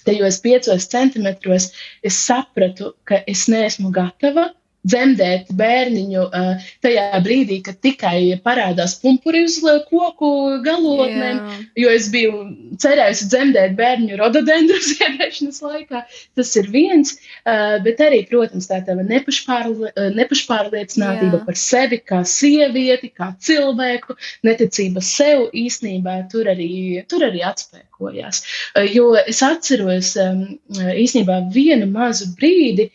tajos 5 centimetros es sapratu, ka es neesmu gatava dzemdēt bērniņu tajā brīdī, kad tikai parādās pumpuri uz koku galotnēm, jo es biju cerējusi dzemdēt bērniņu rododendru ziedēšanas laikā. Tas ir viens, bet arī, protams, tā tava nepašpārliecinātība par sevi kā sievieti, kā cilvēku, neticība sev īstenībā tur arī atspēkojās. Jo es atceros īstenībā vienu mazu brīdi,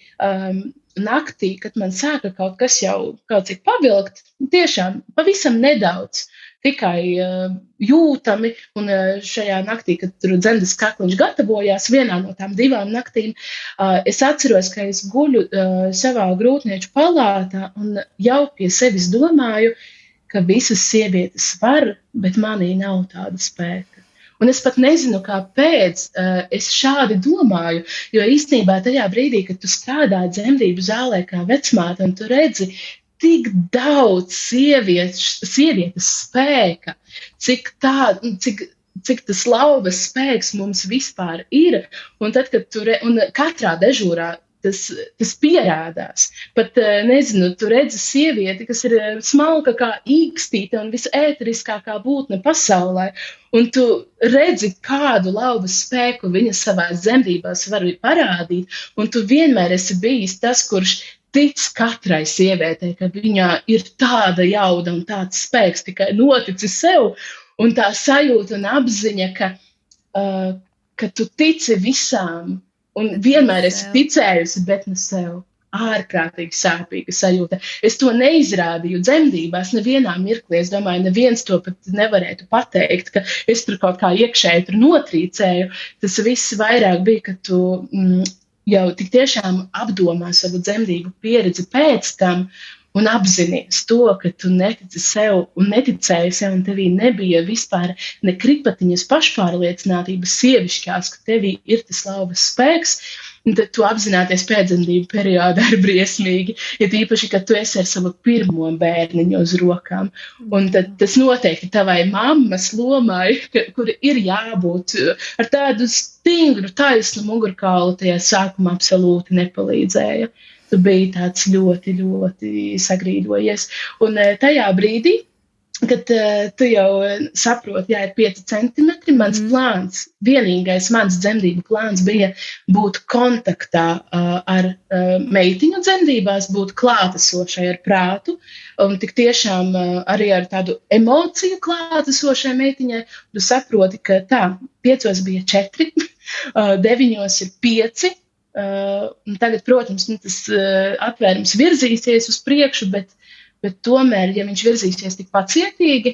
naktī, kad man sāka kaut kas jau kaut cik pavilkt, tiešām pavisam nedaudz, tikai jūtami, un šajā naktī, kad tur dzemdas kakliņš gatavojās, vienā no tām 2 naktīm, es atceros, ka es guļu savā grūtnieču palātā un jau pie sevis domāju, ka visas sievietes var, bet manī nav tāda spēka. Un es pat nezinu, kāpēc es šādi domāju, jo īstenībā tajā brīdī, kad tu strādā dzemdību zālē kā vecmāte un tu redzi tik daudz sievietes spēka, cik tas lauvas spēks mums vispār ir, un tad, kad un katrā dežūrā tas pierādās. Pat, nezinu, tu redzi sievieti, kas ir smalka kā īkstīte un visēteriskākā būtne pasaulē, un tu redzi, kādu lauvas spēku viņa savās dzemdībās var parādīt, un tu vienmēr esi bijis tas, kurš tic katrai sievietei, ka viņā ir tāda jauda un tāds spēks tikai noticis sev, un tā sajūta un apziņa, ka tu tici visām, un vienmēr esi ticējusi, bet ne sev. Ārkārtīgi sāpīga sajūta. Es to neizrādīju dzemdībās nevienā mirklī. Es domāju, neviens to pat nevarētu pateikt, ka es tur kaut kā iekšēji tur notrīcēju. Tas viss vairāk bija, ka tu jau tik tiešām apdomā savu dzemdību pieredzi pēc tam un apzinies to, ka tu netici sev un neticēji sev, un tevī nebija vispār ne kripatiņas pašpārliecinātības sievišķās, ka tevī ir tas lauvas spēks, un tad tu apzināties pēcdzemdību periodā ir briesmīgi, ja tīpaši, ka tu esi ar savu pirmo bērniņu uz rokām. Un tad tas noteikti tavai mammas lomai, kur ir jābūt ar tādu stingru, taisnu mugurkaulu, tajā sākumā absolūti nepalīdzēja. Tu biji tāds ļoti, ļoti sagrīdojies. Un tajā brīdī kad tu jau saproti, jā, ir 5 centimetri, mans plāns, vienīgais mans dzemdību plāns bija būt kontaktā ar meitiņu dzemdībās, būt klātesošai ar prātu, un tik tiešām arī ar tādu emociju klātesošai meitiņai. Tu saproti, ka tā, 5 bija 4, 9 ir 5, un tagad, protams, tas atvērums virzīsies uz priekšu, bet tomēr, ja viņš virzīsies tik pacietīgi,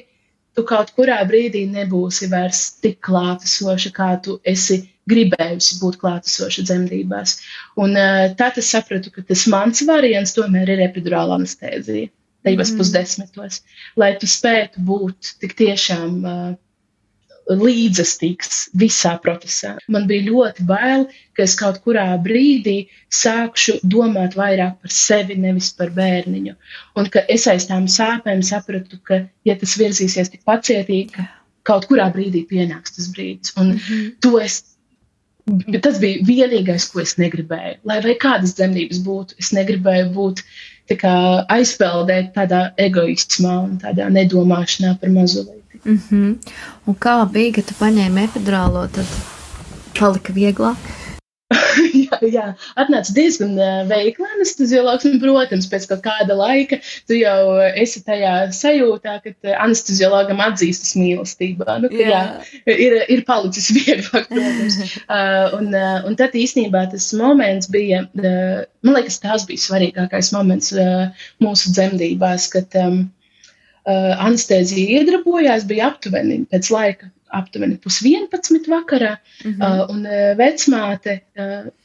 tu kaut kurā brīdī nebūsi vairs tik klātesoša, kā tu esi gribējusi būt klātesoša dzemdībās. Un tad es sapratu, ka tas mans variants tomēr ir epidurāla anestēzija, tajos pusdesmitos, lai tu spētu būt tik tiešām līdzestīgs visā procesā. Man bija ļoti bail, ka es kaut kurā brīdī sākšu domāt vairāk par sevi, nevis par bērniņu. Un ka es aiz tām sāpēm sapratu, ka, ja tas virzīsies tik pacietīgi, kaut kurā brīdī pienāks tas brīdis. Un tas bija vienīgais, ko es negribēju. Lai vai kādas dzemdības būtu, es negribēju būt tā kā aizpeldēt tādā egoismā un tādā nedomāšanā par mazulīti. Un kā bija, ka tu paņēmi epidurālo, tad palika vieglāk? jā, atnāca diezgan veikli anesteziologs, un, protams, pēc kaut kāda laika tu jau esi tajā sajūtā, ka anesteziologam atzīstas mīlestībā. Ir palicis vieglāk, protams. Un tad īstenībā tas moments bija, man liekas, tās bija svarīgākais moments mūsu dzemdībās, kad anestēzija iedarbojās, bija aptuveni pēc laika, aptuveni 10:30 vakarā, un vecmāte,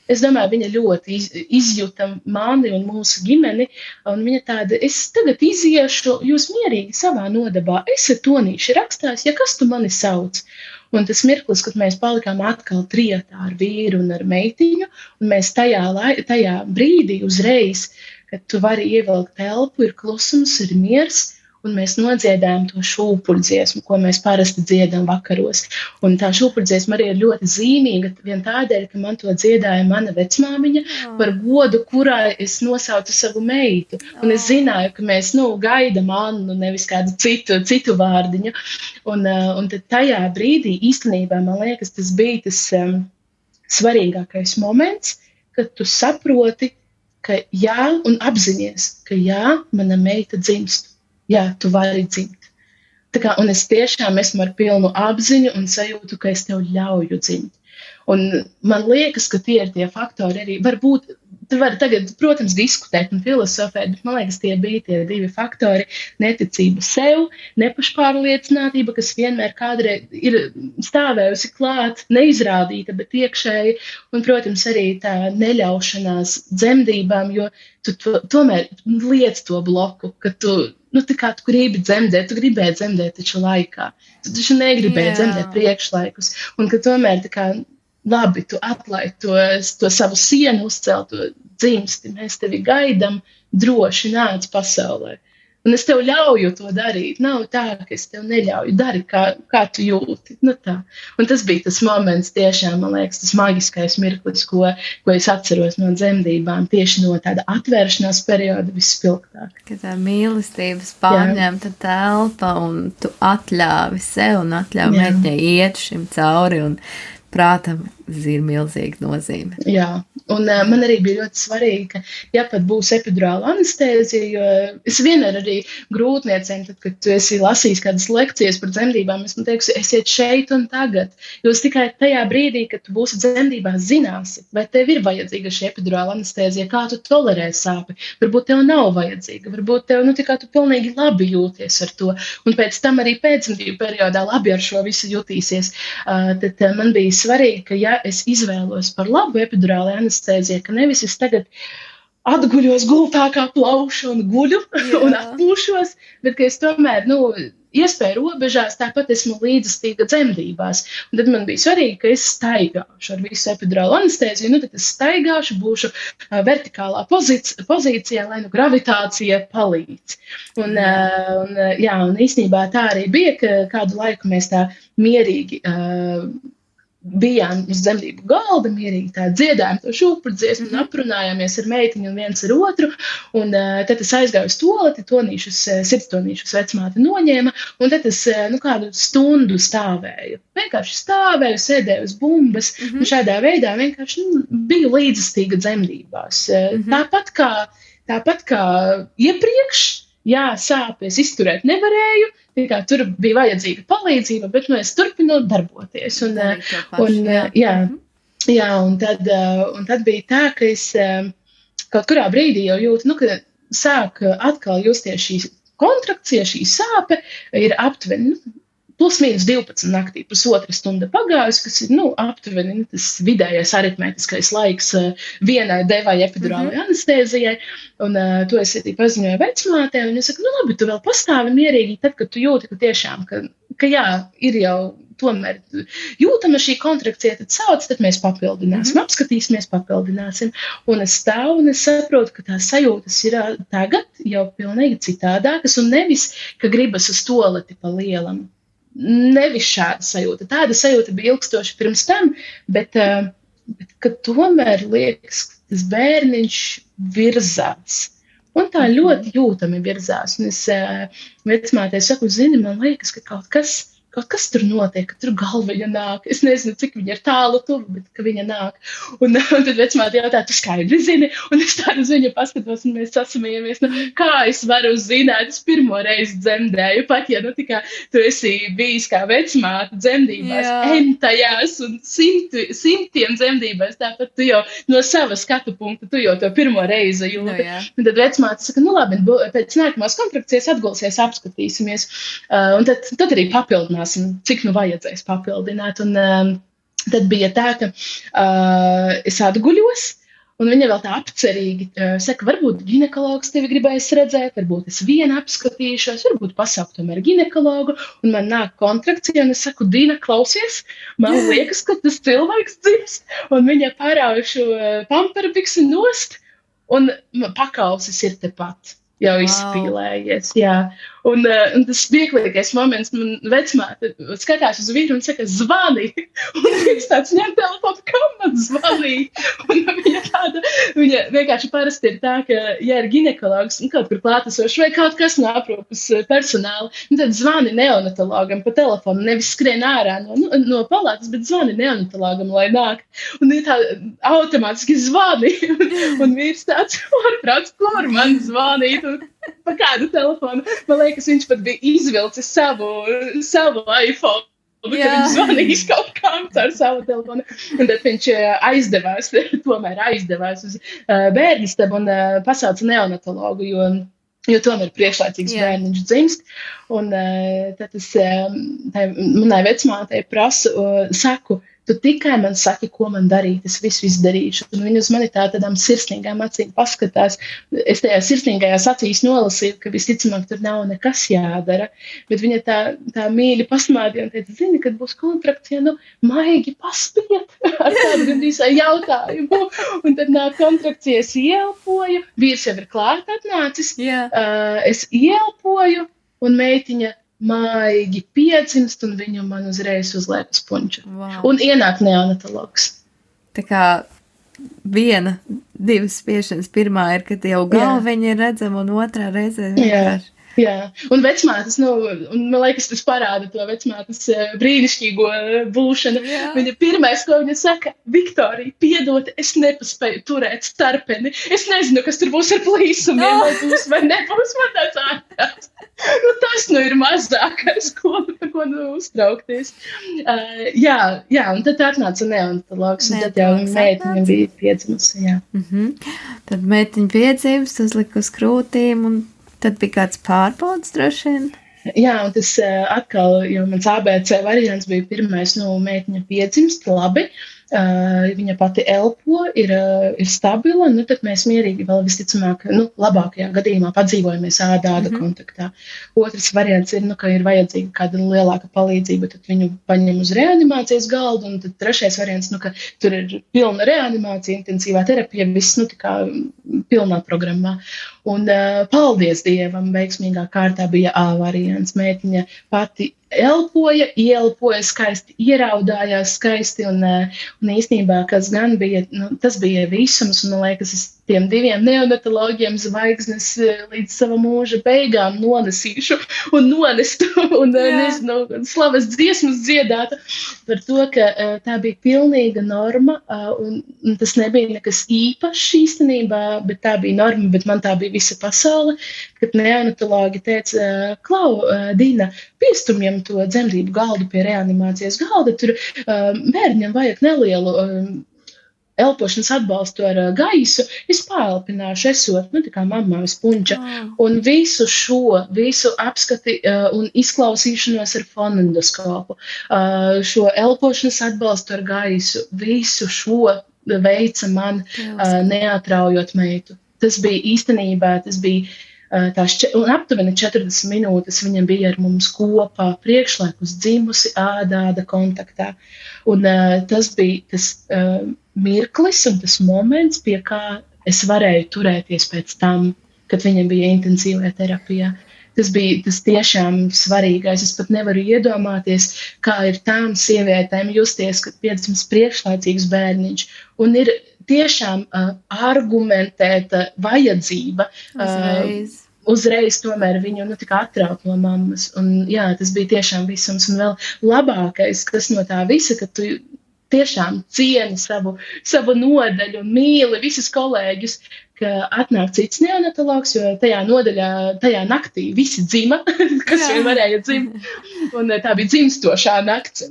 es domāju, viņa ļoti izjuta mani un mūsu ģimeni, un viņa tāda, es tagad iziešu, jūs mierīgi savā nodabā, esat tonīši rakstās, ja kas tu mani sauc? Un tas mirklis, kad mēs palikām atkal trietā ar vīru un ar meitiņu, un mēs tajā brīdī uzreiz, kad tu vari ievilkt telpu, ir klusums, ir miers, un mēs nodziedājam to šūpuļdziesmu, ko mēs parasti dziedam vakaros. Un tā šūpuļdziesma arī ir ļoti zīmīga, vien tādēļ, ka man to dziedāja mana vecmāmiņa par godu, kurā es nosaucu savu meitu. Un es zināju, ka mēs, gaidam Annu, nevis kādu citu vārdiņu. Un tad tajā brīdī īstenībā, man liekas, tas bija tas svarīgākais moments, kad tu saproti, ka jā, un apzinies, ka jā, mana meita dzimst. Jā, tu vari dzimt. Un es tiešām esmu ar pilnu apziņu un sajūtu, ka es tev ļauju dzimt. Un man liekas, ka tie ir tie faktori arī. Varbūt, tu vari tagad, protams, diskutēt un filosofēt, bet man liekas, tie bija tie 2 faktori - neticība sev, nepašpārliecinātība, kas vienmēr kādreiz ir stāvējusi klāt, neizrādīta, bet iekšēji, un, protams, arī tā neļaušanās dzemdībām, jo tu tomēr liec to bloku, ka tu tā kā tu gribi dzemdēt, tu gribēji dzemdēt taču laikā. Tu taču negribēji dzemdēt priekšlaikus. Un ka tomēr tā kā labi, tu atlaid to savu sienu, uzcelt to dzimsti, mēs tevi gaidam, droši nāc pasaulē. Un es tev ļauju to darīt. Nav tā, ka es tev neļauju. Dari, kā tu jūti. Tā. Un tas bija tas moments tiešām, man liekas, tas maģiskais mirklis, ko es atceros no dzemdībām, tieši no tāda atvēršanās perioda vispilgtāk. Kad tā mīlestības pārņemta telpa un tu atļāvi sev un atļāvi meitņai iet šim cauri un prātam ir milzīga nozīme. Jā, un man arī bija ļoti svarīgi, ka, ja pat būs epidurāla anestēzija, jo es vienmēr arī grūtniecēm, tad, kad tu esi lasījis kādas lekcijas par dzemdībām, es man teikšu, esiet šeit un tagad. Jūs tikai tajā brīdī, kad tu būsi dzemdībās, zināsi, vai tev ir vajadzīga šī epidurāla anestēzija, kā tu tolerē sāpi. Varbūt tev nav vajadzīga, varbūt tev, kā tu pilnīgi labi jūties ar to, un pēc tam arī pēcdzemdību periodā labi ar šo visu jutīsies. Tad man bija svarīgi, ka ja es izvēlos par labu epidurālu anestēziju, ka nevis es tagad atguļos gultā kā plaušu un guļu un atpūšos, bet ka es tomēr, iespēju robežās, tāpat esmu līdzestīga dzemdībās. Un tad man bija svarīgi, ka es staigāšu ar visu epidurālu anestēziju, tad es staigāšu, būšu vertikālā pozīcijā, lai gravitācija palīdz. Un īstenībā tā arī bija, ka kādu laiku mēs tā mierīgi bijām uz dzemdību galda, mierīgi tā dziedājām to šūpru dziesmu un aprunājāmies ar meitiņu un viens ar otru. Un tad es aizgāju uz toleti, sirdstonīšus vecmāte noņēma, un tad es kādu stundu stāvēju. Vienkārši stāvēju, sēdēju uz bumbas, un šādā veidā vienkārši biju līdzestīga dzemdībās. Tāpat kā iepriekš, jā, sāpes izturēt nevarēju, tur bija vajadzīga palīdzība, bet es turpinu darboties. Un tad bija tā, ka es kaut kurā brīdī jau jūtu, ka sāk atkal justies šī kontrakcija, šī sāpe ir aptuveni, plus mīnus 12 naktī, pusotra stunda pagājusi, kas ir, aptuveni tas vidējais aritmētiskais laiks vienai devai epidurālai anestēzijai, un to es arī paziņoju vecmātei, un es saku, labi, tu vēl pastāvi mierīgi, tad, kad tu jūti, ka tiešām, ka jā, ir jau tomēr jūtama šī kontrakcija, tad sauc, tad mēs papildināsim, apskatīsimies, papildināsim, un es stāvu, un es saprotu, ka tās sajūtas ir tagad jau pilnīgi citādākas, un nevis, ka gribas uz toleti pa lielam. Nevis šāda sajūta. Tāda sajūta bija ilgstoši pirms tam, bet ka tomēr liekas, ka tas bērniņš virzās. Un tā ļoti jūtami virzās. Un es vecmātei saku, zini, man liekas, ka kaut kas tur notiek, ka tur galviņa nāk. Es nezinu, cik viņa ir tālu tuvu, bet ka viņa nāk. Un tad vecmāte jautā, tu skaidri zini? Un es tādu uz viņu paskatos, un mēs sasmējamies. Kā es varu zināt? Es pirmo reizi dzemdēju, pat ja tikā tu esi bijis kā vecmāte dzemdībās, entajās un simtiem dzemdībās, tāpat tu jau no sava skatu punkta, tu jau to pirmo reizi jūti. Un tad vecmāte saka, labi, pēc nākamās kontrakcijas atgulsies, apskatīsimies. Un tad arī papildināt. Cik vajadzēs papildināt. Un tad bija tā, ka es atguļos, un viņa vēl tā apcerīgi saka, varbūt ginekologs tevi gribēs redzēt, varbūt es viena apskatīšos, varbūt pasaukt tomēr ginekologu, un man nāk kontrakcija, un es saku, Dina, klausies, man liekas, ka tas cilvēks dzimst, un viņa parauj šo pamperbiksu nost, un pakausis ir tepat. Jau izspīlējies, jā. Un tas smieklīgais moments, man vecmāte skatās uz vīru un saka, zvani. Un viņš tāds ņem telefonu, kam man zvanīt? Un viņa vienkārši parasti ir tā, ka, ja ir ginekologs kaut kur klātesošs vai kaut kas no aprūpes personāla, tad zvani neonatologam pa telefonu, nevis skrien ārā no palātas, bet zvani neonatologam, lai nāk. Un ir tā automātiski zvani. Un vīrs tāds, ārprāts, kur man zvanīt? Pa kādu telefonu. Man liekas, viņš pat bija izvilcis savu iPhone, kad viņš zvanījis kaut kam caur savu telefonu. Un tad viņš tomēr aizdevās uz bērnistabu un pasauca neonatologu, jo tomēr priekšlaicīgs bērniņš dzimst. Un tad es manai vecmātei saku, tu tikai man saki, ko man darīt, es visu izdarīšu. Un viņa uz mani tādām sirsnīgām acīm paskatās. Es tajā sirsnīgajās acīs nolasīju, ka visticamāk tur nav nekas jādara. Bet viņa tā mīļi pasmādīja un teica, zini, kad būs kontrakcija, maigi paspiet ar tādu gandrīz jautājumu. Un tad nāk kontrakcija, es ieelpoju, vīrs jau ir klāt atnācis, es ieelpoju un meitiņa maigi piedzimst, un viņu man uzreiz uzliek uz punča. Wow. Un ienāk neonatologs. Tā kā divas spiešanas. Pirmā ir, kad jau galviņa ir redzama, un otrā reizē vienkārši. Jā, un vecmātes, un man liekas, tas parāda to vecmātes brīnišķīgo būšanu. Jā. Viņa pirmais, ko viņa saka, Viktorija, piedod, es nepaspēju turēt starpeni. Es nezinu, kas tur būs ar plīsumiem, vai būs vai nebūs, man tāds ārprāts. Tas ir mazākais, par ko uztraukties. Jā, un tad atnāca neonatologs, un tad jau meitiņa bija piedzimusi, jā. Tad meitiņa piedzimst, uzlika uz krūtīm, un tad bija kāds pārbaudas droši vien? Jā, un tas atkal, jo mans ABC variants bija pirmais, meitiņa piedzimst, labi. Viņa pati elpo, ir stabila, tad mēs mierīgi vēl visticamāk, labākajā gadījumā padzīvojamies āda kontaktā. Otrs variants ir, ka ir vajadzīga kāda lielāka palīdzība, tad viņu paņem uz reanimācijas galdu, un tad trešais variants, ka tur ir pilna reanimācija, intensīvā terapija, viss, tā kā pilnā programmā. Un paldies Dievam, veiksmīgā kārtā bija A variants. Meitiņa pati ieelpoja skaisti, ieraudājās skaisti, un īstenībā, kas gan bija, tas bija visums, un man liekas, es tiem 2 neonatologiem zvaigznes līdz sava mūža beigām nonesīšu un nonestu, un nezinu, slavas dziesmas dziedātu par to, ka tā bija pilnīga norma, un tas nebija nekas īpašs īstenībā, bet tā bija norma, bet man tā bija visa pasaule, kad neonatologi teica, Klau, Dina, piestumjam to dzemdību galdu pie reanimācijas galda, tur bērņam vajag nelielu elpošanas atbalstu ar gaisu, es pāelpināšu esot, tā kā mamma spunča, un visu apskati un izklausīšanos ar fonendoskopu, šo elpošanas atbalstu ar gaisu, visu šo veica man neatraujot meitu. Tas bija īstenībā, un aptuveni 40 minūtes viņa bija ar mums kopā, priekšlaikus dzimusi ādāda kontaktā. Un tas bija tas mirklis un tas moments, pie kā es varēju turēties pēc tam, kad viņa bija intensīvajā terapijā. Tas bija tas tiešām svarīgais. Es pat nevaru iedomāties, kā ir tām sievietēm justies, kad piedzimst priekšlaicīgs bērniņš. Un ir tiešām argumentēta vajadzība uzreiz tomēr viņu tik atraut no mammas. Un jā, tas bija tiešām visums. Un vēl labākais, kas no tā visa, ka tu tiešām cieni savu nodaļu un mīli visus kolēģus, ka atnāk cits neonatologs, jo tajā naktī visi dzima, kas vien varēja dzimt. Un tā bija dzimstošā nakts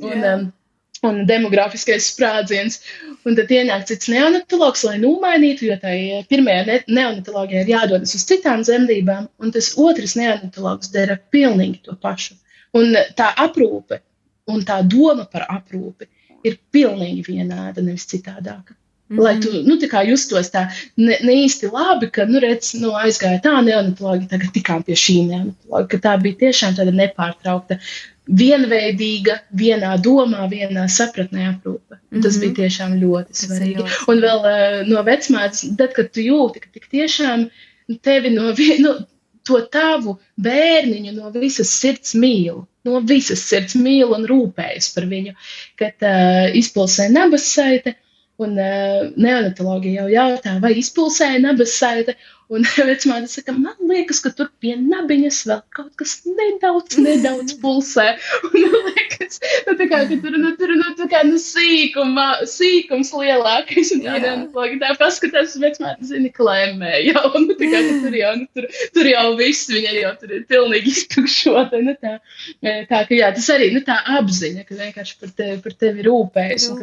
un demografiskais sprādziens. Un tad ienāk cits neonatologs, lai nomainītu, jo tai pirmajā neonatologijā ir jādodas uz citām dzemdībām, un tas otrs neonatologs dara pilnīgi to pašu. Un tā aprūpe un tā doma par aprūpi ir pilnīgi vienāda, nevis citādāka. Lai tu, tā kā justos tā ne īsti labi, ka, aizgāja tā neonatologi, tagad tikām pie šī neonatologa, ka tā bija tiešām tāda nepārtraukta, vienveidīga, vienā domā, vienā sapratnē aprūpe. Tas bija tiešām ļoti svarīgi. Un vēl no vecmātes, tad, kad tu jūti, ka tik tiešām tevi to tavu bērniņu no visas sirds mīl un rūpējas par viņu, kad izpulsē nabassaite, un neonatologi jau jautā, vai izpulsēja nabassaite, un vecmāte saka, man liekas, ka tur pie nabiņas vēl kaut kas nedaudz pulsē, un man liekas, ka tur sīkums lielākais, un neonatologi tā paskatās, vecmāte zini klēmē, jau, tur jau viss, viņa jau tur ir pilnīgi iztukšota, tā, ka jā, tas arī, tā apziņa, ka vienkārši par tevi rūpējas, un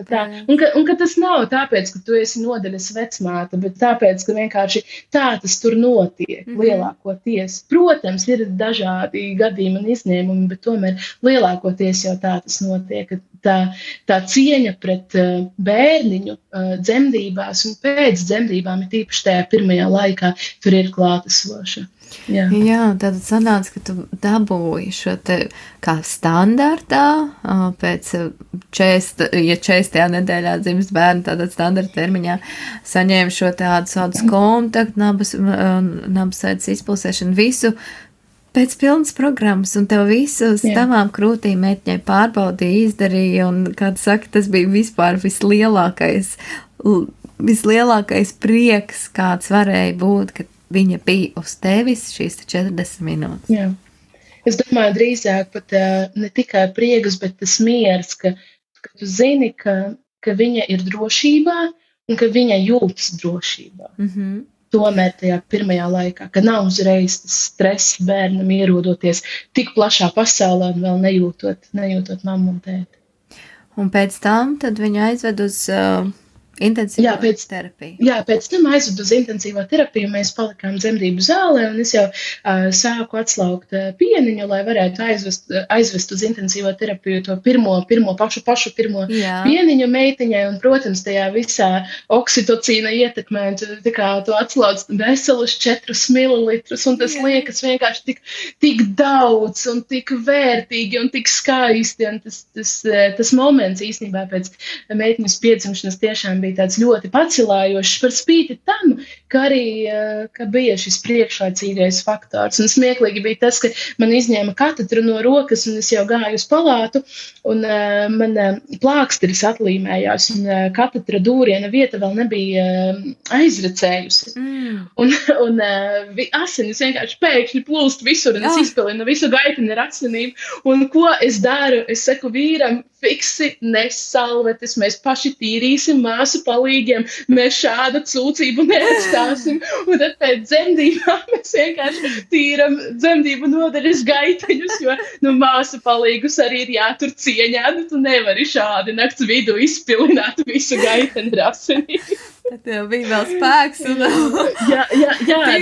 ka tas nav tāpēc, ka tu esi nodaļas vecmāte, bet tāpēc, ka vienkārši tā tas tur notiek lielākoties. Protams, ir dažādi gadījumi un izņēmumi, bet tomēr lielākoties jau tā tas notiek. Tā cieņa pret bērniņu dzemdībās un pēc dzemdībām, ir tīpaši tajā pirmajā laikā, tur ir klātesoša. Jā, tad sanāca, ka tu dabūji šo te kā standartā, pēc 40. nedēļā dzimst bērni, tātad standarta termiņā saņēma šo tādu kontaktu, nabasaites izpulsēšanu, visu pēc pilnas programmas, un tev visu uz tavām krūtīm meitņai pārbaudīja, izdarīja, un, kā tu saki, tas bija vispār vislielākais prieks, kāds varēja būt, ka viņa bija uz tevis šīs 40 minūtes. Jā. Es domāju, drīzāk pat ne tikai prieks, bet tas miers, ka tu zini, ka viņa ir drošībā un ka viņa jūtas drošībā. Tomēr tajā pirmajā laikā, ka nav uzreiz tas stress bērnam ierodoties tik plašā pasaulē un vēl nejūtot mammu un tēti. Un pēc tam tad viņa aizved uz intensīvo terapiju. Jā, pēc tam aizvedu uz intensīvo terapiju, mēs palikām dzemdību zālē, un es jau sāku atslaukt pieniņu, lai varētu aizvest uz intensīvo terapiju to pašu pirmo pieniņu meitiņai, un, protams, tajā visā oksitocīna ietekmē, tā kā tu atslauc veselus 4 mililitrus, un tas liekas vienkārši tik daudz, un tik vērtīgi, un tik skaisti, un tas moments īstenībā pēc meitiņas piedzimšanas tiešām bija tāds ļoti pacelājošs par spīti tam, ka arī ka bija šis priekšlaicīgais faktors. Un smieklīgi bija tas, ka man izņēma katedru no rokas, un es jau gāju uz palātu, un man plāksteris atlīmējās, un katedra dūriena vieta vēl nebija aizrecējusi. Un asinis vienkārši pēkšņi plūst visur, un es izpilinu visu gaitini ar asinīm. Un ko es daru? Es saku vīram, fiksi, nes salvetes, mēs paši tīrīsim māsu palīgiem, mēs šādu cūcību neatstāsim. Un tad pēc dzemdībām mēs vienkārši tīram dzemdību nodaļas gaiteņus, jo māsu palīgus arī ir jātur cieņā, tu nevari šādi nakts vidu izpilināt visu gaiteni ar asinīm. Tad tev bija vēl spēks. Jā,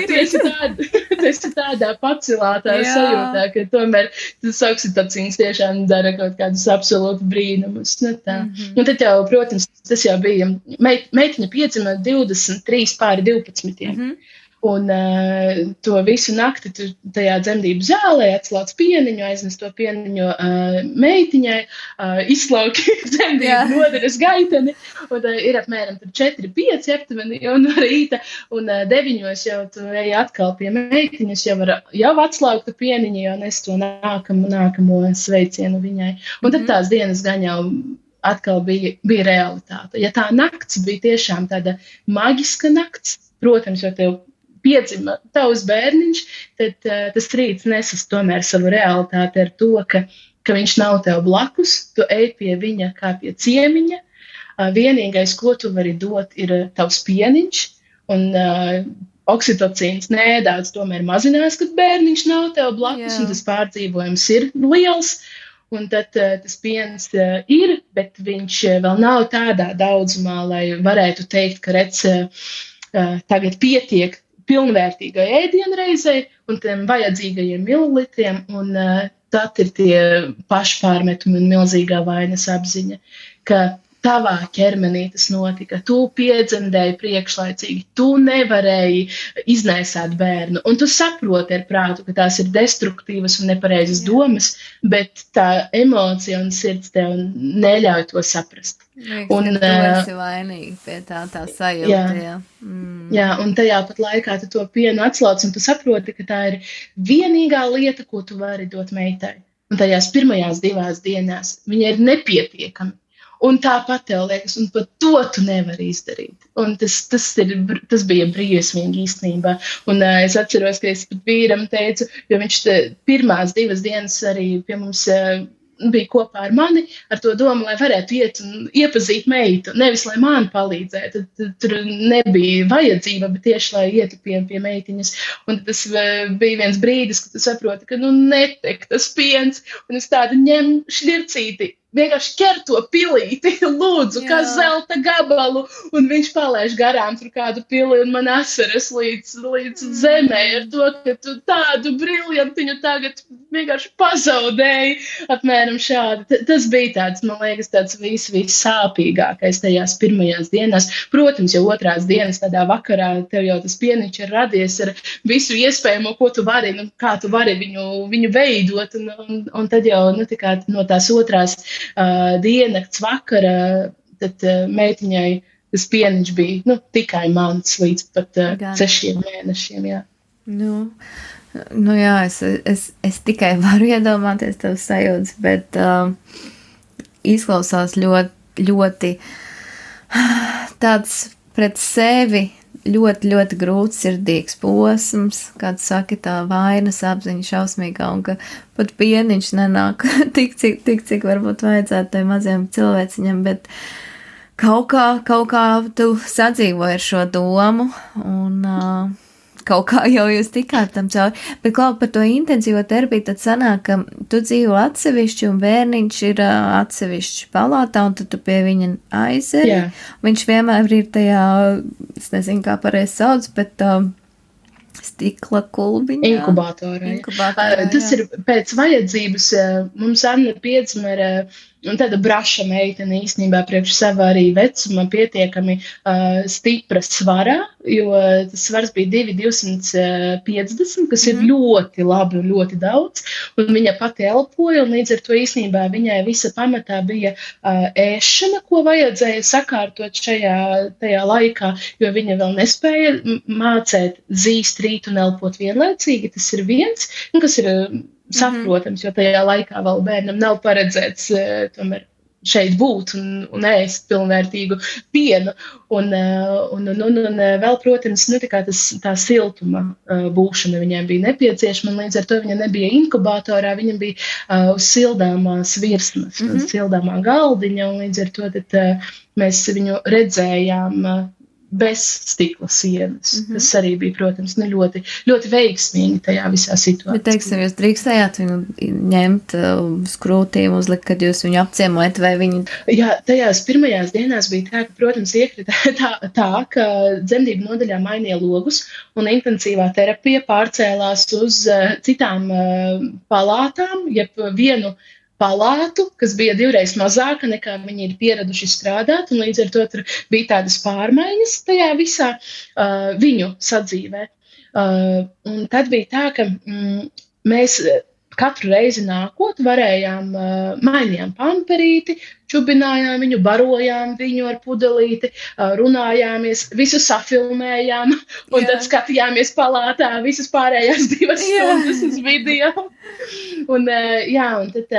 tieši tādā pacelātā sajūtā, ka tomēr tas oksitocīns tiešām dara kaut kādus absolūti brīnumus. Un tad jau, protams, tas jau bija, meitiņa piedzima 23 pāri 12. Un to visu nakti tajā dzemdību zālē atslauc pieniņu, aiznes to pieniņu meitiņai, izslauki dzemdību nodaļas gaiteni, un ir apmēram 4-5 aptuveni jau no rīta, un 9 jau tu ej atkal pie meitiņas, jau atslauktu pieniņu, jau nes to nākamo sveicienu viņai. Un tad tās dienas gan jau atkal bija realitāte. Ja tā nakts bija tiešām tāda maģiska nakts, protams, jo tev piedzima tavs bērniņš, tad tas rīts nesas tomēr savu realitāti ar to, ka viņš nav tev blakus, tu ej pie viņa kā pie ciemiņa, vienīgais, ko tu vari dot, ir tavs pieniņš, un oksitocīns nedaudz tomēr mazinās, kad bērniņš nav tev blakus, un tas pārdzīvojums ir liels, un tad tas piens ir, bet viņš vēl nav tādā daudzumā, lai varētu teikt, ka redz tagad pietiek pilnvērtīgai ēdienreizei un tiem vajadzīgajiem mililitriem, un tad ir tie pašpārmetumi un milzīgā vainas apziņa, ka tavā ķermenī tas notika, tu piedzemdēji priekšlaicīgi, tu nevarēji iznēsāt bērnu, un tu saproti ar prātu, ka tās ir destruktīvas un nepareizas domas, bet tā emocija un sirds tev neļauj to saprast. Un tu esi vainīgi pie tā sajūta. Jā, un tajā pat laikā tu to pienu atslauc, un tu saproti, ka tā ir vienīgā lieta, ko tu vari dot meitai. Un tajās pirmajās 2 dienās viņa ir nepietiekami. Un tāpat tev liekas, un pat to tu nevari izdarīt. Un tas bija briesmīgi īstenībā. Un es atceros, ka es pat vīram teicu, jo viņš pirmās 2 dienas arī pie mums bija kopā ar mani, ar to domu, lai varētu iet un iepazīt meitu. Nevis, lai man palīdzētu. Tur nebija vajadzība, bet tieši, lai ietu pie meitiņas. Un tas bija viens brīdis, kad tu saproti, ka netek tas piens, un es tādu ņem šļircīti. Vienkārši ķer to pilīti, lūdzu, kā zelta gabalu, un viņš palaiž garām tur kādu pili, un man asaras līdz zemē ar to, ka tu tādu briljantiņu tagad vienkārši pazaudēji, apmēram šādi. Tas bija tāds, man liekas, tāds vissāpīgākais tajās pirmajās dienās. Protams, jau otrās dienas tādā vakarā tev jau tas pieniņš ir radies ar visu iespējamo, ko tu vari, kā tu vari viņu veidot, un tad jau no tās otrās diennakts vakara, tad meitiņai tas pieniņš bija tikai mans līdz pat 6 mēnešiem, jā. Jā, es tikai varu iedomāties tev sajūtas, bet izklausās ļoti, ļoti tāds pret sevi ļoti, ļoti grūts sirdīgs posms, kāds saka, tā vainas apziņa šausmīgā, un ka pat pieniņš nenāk tik, cik varbūt vajadzētu tai maziem cilvēciņam, bet kaut kā tu sadzīvoji ar šo domu, un kaut kā jau jūs tikāt tam cauri. Bet, Klau, par to intenzīvo terapiju, tad sanāk, ka tu dzīvo atsevišķi un bērniņš ir atsevišķi palātā, un tad tu pie viņa aizeri. Jā. Viņš vienmēr ir tajā, es nezinu, kā pareizi sauc, bet stikla kulbiņā. Inkubatorā. Tas ir pēc vajadzības. Mums Anna piedzima ar un tāda braša meitene īstenībā priekš sava arī vecuma pietiekami stipra svarā, jo tas svars bija 250, kas ir ļoti labi un ļoti daudz, un viņa pati elpoja, un līdz ar to īstenībā viņai visa pamatā bija ēšana, ko vajadzēja sakārtot tajā laikā, jo viņa vēl nespēja mācēt zīst, rīt un elpot vienlaicīgi, tas ir viens, un kas ir saprotams, jo tajā laikā vēl bērnam nav paredzēts tomēr šeit būt un ēst pilnvērtīgu pienu. Un vēl, protams, tā siltuma būšana viņai bija nepieciešama, un līdz ar to viņa nebija inkubatorā, viņa bija uz sildāmās virsmas, uz sildāmā galdiņa, un līdz ar to mēs viņu redzējām bez stikla sienas. Tas arī bija, protams, ļoti, ļoti veiksmīgi tajā visā situācijā. Bet, teiksim, jūs drīkstējāt viņu ņemt uz krūtīm, uzlikt, kad jūs viņu apciemojat, vai viņu... Jā, tajās pirmajās dienās bija tā, ka, protams, iekrita tā, ka dzemdību nodaļā mainīja logus, un intensīvā terapija pārcēlās uz citām palātām, jeb vienu palātu, kas bija 2 mazāka nekā viņi ir pieraduši strādāt, un līdz ar to tur bija tādas pārmaiņas tajā visā viņu sadzīvē. Un tad bija tā, ka mēs katru reizi nākot varējām, mainījām pamperīti, čubinājām viņu, barojām viņu ar pudelīti, runājāmies, visu safilmējām, un tad skatījāmies palātā visas pārējās 2 stundas uz video. Un tad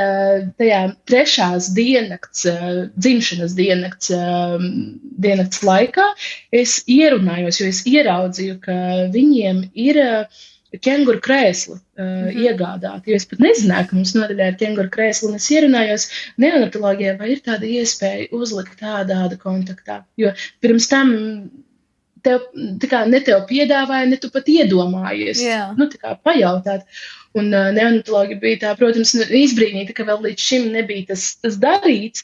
tajā 3. diennakts, dzimšanas diennakts laikā es ierunājos, jo es ieraudzīju, ka viņiem ir kenguru krēslu iegādāt, jo es pat nezināju, ka mums nodaļā ir kenguru krēslu, un es ierunājos neonatologijā, vai ir tāda iespēja uzlikt tāda kontaktā, jo pirms tam ne tev piedāvāja, ne tu pat iedomājies, pajautāt. Un neonatologi bija tā, protams, izbrīnīta, ka vēl līdz šim nebija tas darīts,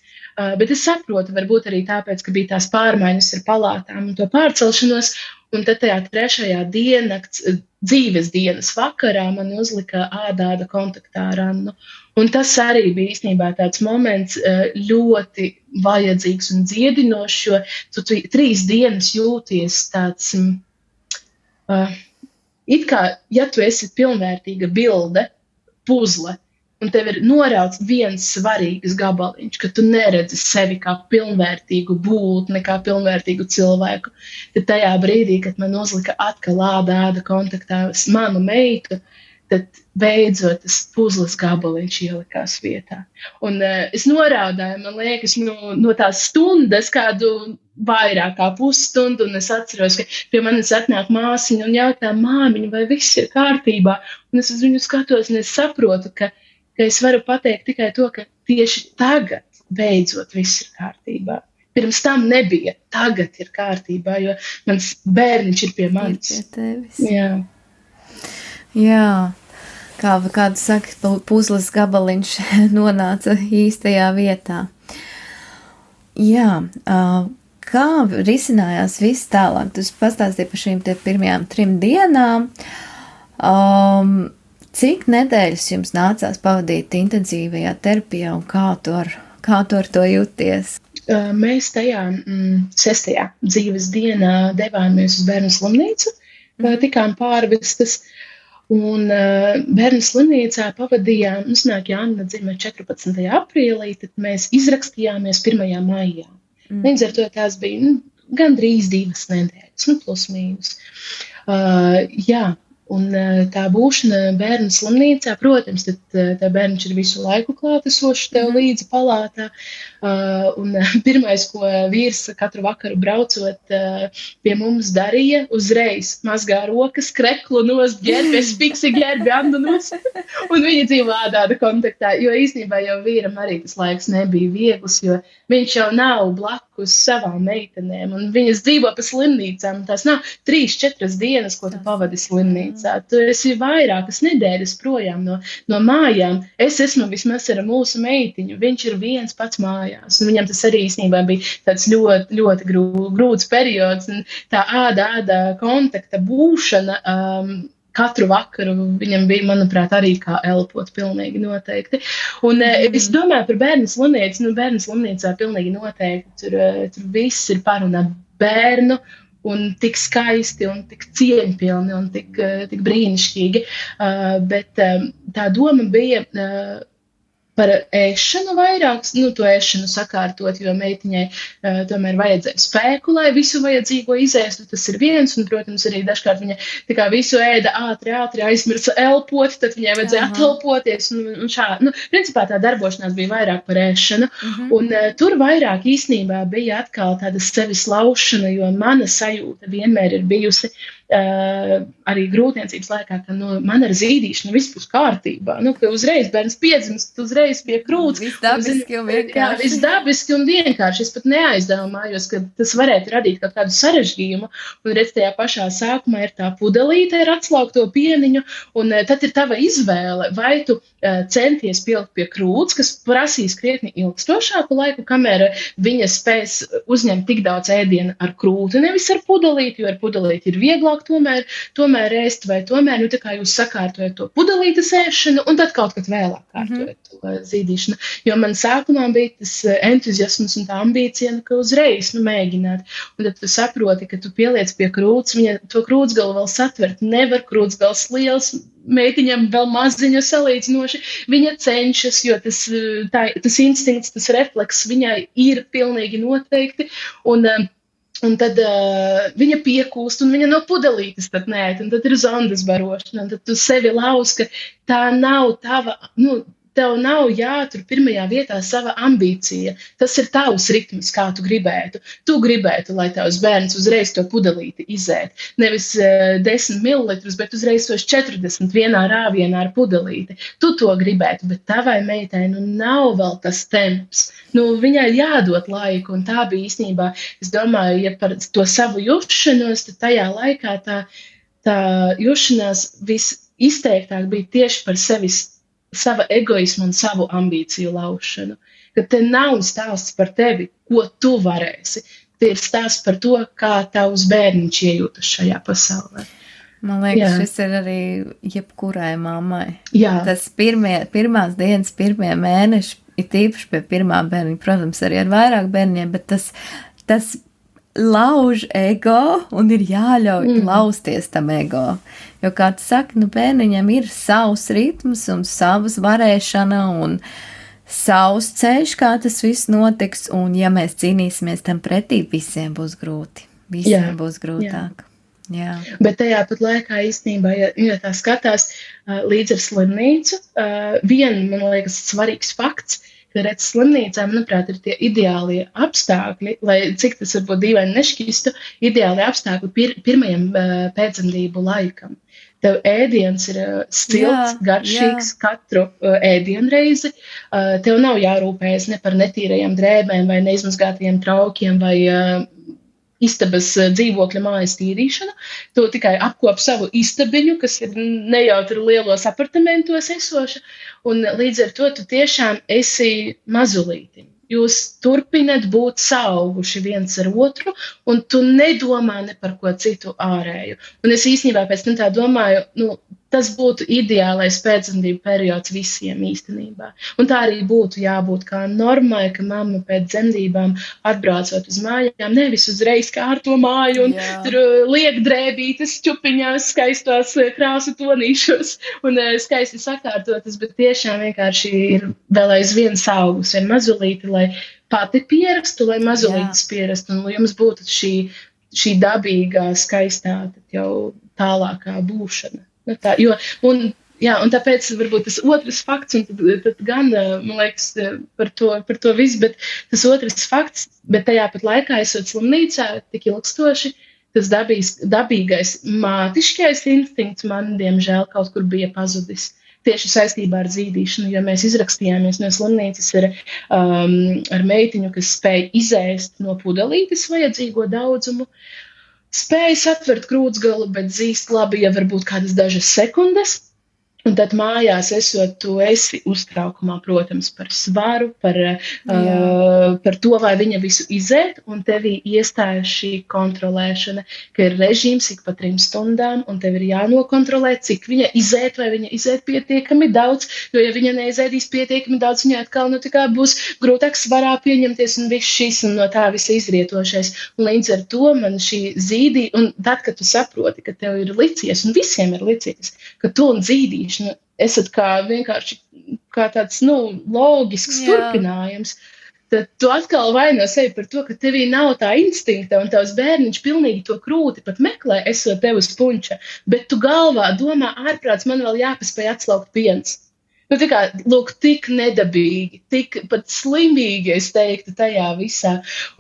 bet es saprotu, varbūt arī tāpēc, ka bija tās pārmaiņas ar palātām un to pārcelšanos, un tad tajā 3. diennakts dzīves dienas vakarā man uzlika ādāda kontaktā ar Annu. Un tas arī bija īstenībā tāds moments ļoti vajadzīgs un dziedinošs, jo tu 3 dienas jūties tāds... It kā, ja tu esi pilnvērtīga bilde, puzle, un tev ir norauts viens svarīgs gabaliņš, ka tu neredzi sevi kā pilnvērtīgu būtni, kā pilnvērtīgu cilvēku, tad tajā brīdī, kad man uzlika atkal āda kontaktā manu meitu, tad beidzot tas puzles gabaliņš ielikās vietā. Un es noraudāju, man liekas, no tās stundas kādu vairāk kā pusstundu, un es atceros, ka pie manis atnāk māsiņa un jautā, māmiņa, vai viss ir kārtībā, un es uz viņu skatos, un es saprotu, ka es varu pateikt tikai to, ka tieši tagad beidzot viss ir kārtībā. Pirms tam nebija, tagad ir kārtībā, jo mans bērniņš ir pie manis. Ir pie tevis. Jā. Kādu saka, puzles gabaliņš nonāca īstajā vietā. Jā, kā risinājās viss tālāk? Tu pastāstīji par šīm pirmajām 3 dienām. Cik nedēļas jums nācās pavadīt intensīvajā terapijā un kā tu ar to jūties? Mēs tajā 6. dzīves dienā devāmies uz bērnu slimnīcu, tikām pārvestas. Un bērnu slimnīcā pavadījām, Anna dzima 14. aprīlī, tad mēs izrakstījāmies 1. maijā. Līdz ar to tās bija gandrīz 2 nedēļas, plus mīnus. Un tā būšana bērnu slimnīcā, protams, tad tā bērniņš ir visu laiku klātesošs tev līdzi palātā. Un pirmais, ko vīrs katru vakaru braucot pie mums darīja, uzreiz mazgā rokas, kreklu nost, ģērbies, piksi ģērbi Annu nost. Un viņi dzīvo ādāda kontaktā, jo īstenībā jau vīram arī tas laiks nebija viegls, jo viņš jau nav blakus savām meitenēm, un viņas dzīvo pa slimnīcām. Tās nav 3-4 dienas, ko tu pavadi slimnīcā. Tu esi vairākas nedēļas projām no mājām. Es esmu vismaz ar mūsu meitiņu. Viņš ir viens pats mājās. Un viņam tas arī īstenībā bija tāds ļoti, ļoti grūts periods. Un tā āda kontakta būšana katru vakaru viņam bija, manuprāt, arī kā elpot pilnīgi noteikti. Un es domāju par bērnu slimnīcu. Bērnu slimnīcā pilnīgi noteikti tur viss ir par un ap bērnu. Un tik skaisti, un tik cieņpilni, un tik brīnišķīgi. Bet tā doma bija par ēšanu vairāk, to ēšanu sakārtot, jo meitiņai tomēr vajadzēja spēku, lai visu vajadzīgo izēstu, tas ir viens, un, protams, arī dažkārt viņa tā kā visu ēda ātri aizmirsa elpot, tad viņai vajadzēja atelpoties, un šādi. Principā tā darbošanās bija vairāk par ēšanu, un tur vairāk īstenībā bija atkal tāda sevis laušana, jo mana sajūta vienmēr ir bijusi, arī grūtniecības laikā, ka man ar zīdīšanu viss būs kārtībā. Ka uzreiz bērns piedzimst, uzreiz pie krūts. Viss dabiski un vienkārši. Jā, viss dabiski un vienkārši. Es pat neaizdomājos, ka tas varētu radīt kaut kādu sarežģījumu. Un redz, tajā pašā sākumā ir tā pudelīte ar atslaukto pieniņu, un tad ir tava izvēle, vai tu centies pielikt pie krūts, kas prasīs krietni ilgstošāku laiku, kamēr viņa spēs uzņemt tik daudz ēdienu ar krūti, nevis ar pudelīti, jo ar pudelīti ir vieglāk tomēr ēst, vai tomēr, tā kā jūs sakārtojat to pudelītes ēšanu, un tad kaut kad vēlāk kārtojat to zīdīšanu. Jo man sākumā bija tas entuziasms un tā ambīcija, ka uzreiz mēģināt. Un tad tu saproti, ka tu pieliec pie krūts, viņa to krūtsgalu vēl satvert nevar, krūtsgals liels, meitiņam vēl maziņa salīdzinoši. Viņa cenšas, jo tas instinkts, tas refleks viņai ir pilnīgi noteikti, un tad viņa piekūst, un viņa no pudelītes tad nē, un tad ir zondas barošana, un tad tu sevi lauz, ka tā nav tava, tev nav jātur pirmajā vietā sava ambīcija. Tas ir tavs ritms, kā tu gribētu. Tu gribētu, lai tavs bērns uzreiz to pudelīti izēt. Nevis 10 mililitrus, bet uzreiz tos 40 vienā rāvienā ar pudelīti. Tu to gribētu, bet tavai meitai nav vēl tas temps. Viņai jādod laiku, un tā bija īstenībā, es domāju, ja par to savu jušanos, tad tajā laikā tā jušanās visizteiktāk bija tieši par sava egoismu un savu ambīciju laušanu. Ka te nav stāsts par tevi, ko tu varēsi. Te ir stāsts par to, kā tavs bērniņš iejūtas šajā pasaulē. Man liekas, šis ir arī jebkurai mammai. Jā. Tas pirmās dienas, pirmie mēneši, ir tīpaši pie pirmā bērniņa, protams, arī ar vairāk bērniņiem, bet tas lauž ego un ir jāļauj lausties tam ego. Jo, kā tu saki, bērniņam ir savs ritms un savas varēšana un savs ceļš, kā tas viss notiks, un ja mēs cīnīsimies tam pretī, visiem būs grūti. Visiem būs grūtāk. Jā. Bet tajā pat laikā īstenībā, ja tā skatās līdz ar slimnīcu, man liekas, svarīgs fakts, ka redz slimnīcā, manuprāt, ir tie ideālie apstākļi, lai cik tas varbūt dīvaini nešķistu, ideālie apstākļi pirmajam pēcdzemdību laikam. Tev ēdiens ir silts, garšīgs katru ēdienreizi. Tev nav jārūpējas ne par netīrajām drēbēm vai neizmazgātajiem traukiem vai istabas dzīvokļa mājas tīrīšanu. Tu tikai apkop savu istabiņu, kas ir nejautri lielos apartamentos esoša, un līdz ar to tu tiešām esi mazulīti. Jūs turpināt būt saauguši viens ar otru, un tu nedomā ne par ko citu ārēju. Un es īstenībā pēc tam tā domāju, tas būtu ideālais pēcdzemdību periods visiem īstenībā. Un tā arī būtu jābūt kā normai, ka mamma pēc dzemdībām atbraucot uz mājām, nevis uzreiz kārto māju un tur liek drēbītes čupiņās, skaistos krāsu tonīšos un skaisti sakārtotas, bet tiešām vienkārši ir vēl aizvien saugus, vien mazulīti, lai pati pierastu, lai mazulītis pierastu, un lai jums būtu šī dabīgā, skaistā, jau tālākā būšana. Un tāpēc varbūt tas otrs fakts, un tad gan, man liekas, par to visu, bet tas otrs fakts, bet tajā pat laikā esot slimnīcā tik ilgstoši, tas dabīgais mātiškais instinkts man, diemžēl, kaut kur bija pazudis. Tieši saistībā ar zīdīšanu, jo mēs izrakstījāmies no slimnīcas ar meitiņu, kas spēja izēst no pudelītes vajadzīgo daudzumu, spēja satvert krūtsgalu, bet zīst labi, ja varbūt kādas dažas sekundes, Un tad mājās esot, tu esi uztraukumā, protams, par svaru, par to, vai viņa visu izēt, un tevī iestājas šī kontrolēšana, ka ir režīms ik pa 3 stundām, un tev ir jānokontrolē, cik viņa izēt, vai viņa izēt pietiekami daudz, jo ja viņa neizēdīs pietiekami daudz, viņa atkal, tā kā būs grūtāk svarā pieņemties, un viss šis, un no tā visa izrietošais. Un līdz ar to man šī zīdī, un tad, kad tu saproti, ka tev ir licies, un visiem ir licies, ka tu un zīdīšana esat vienkārši kā tāds, loģisks turpinājums, tad tu atkal vaino sevi par to, ka tevī nav tā instinkta, un tavs bērniņš pilnīgi to krūti pat meklē, esot tev uz punča, bet tu galvā domā, ārprāts, man vēl jāpaspēj atslaukt piens. Tā kā, lūk, tik nedabīgi, tik pat slimīgi, es teiktu, tajā visā.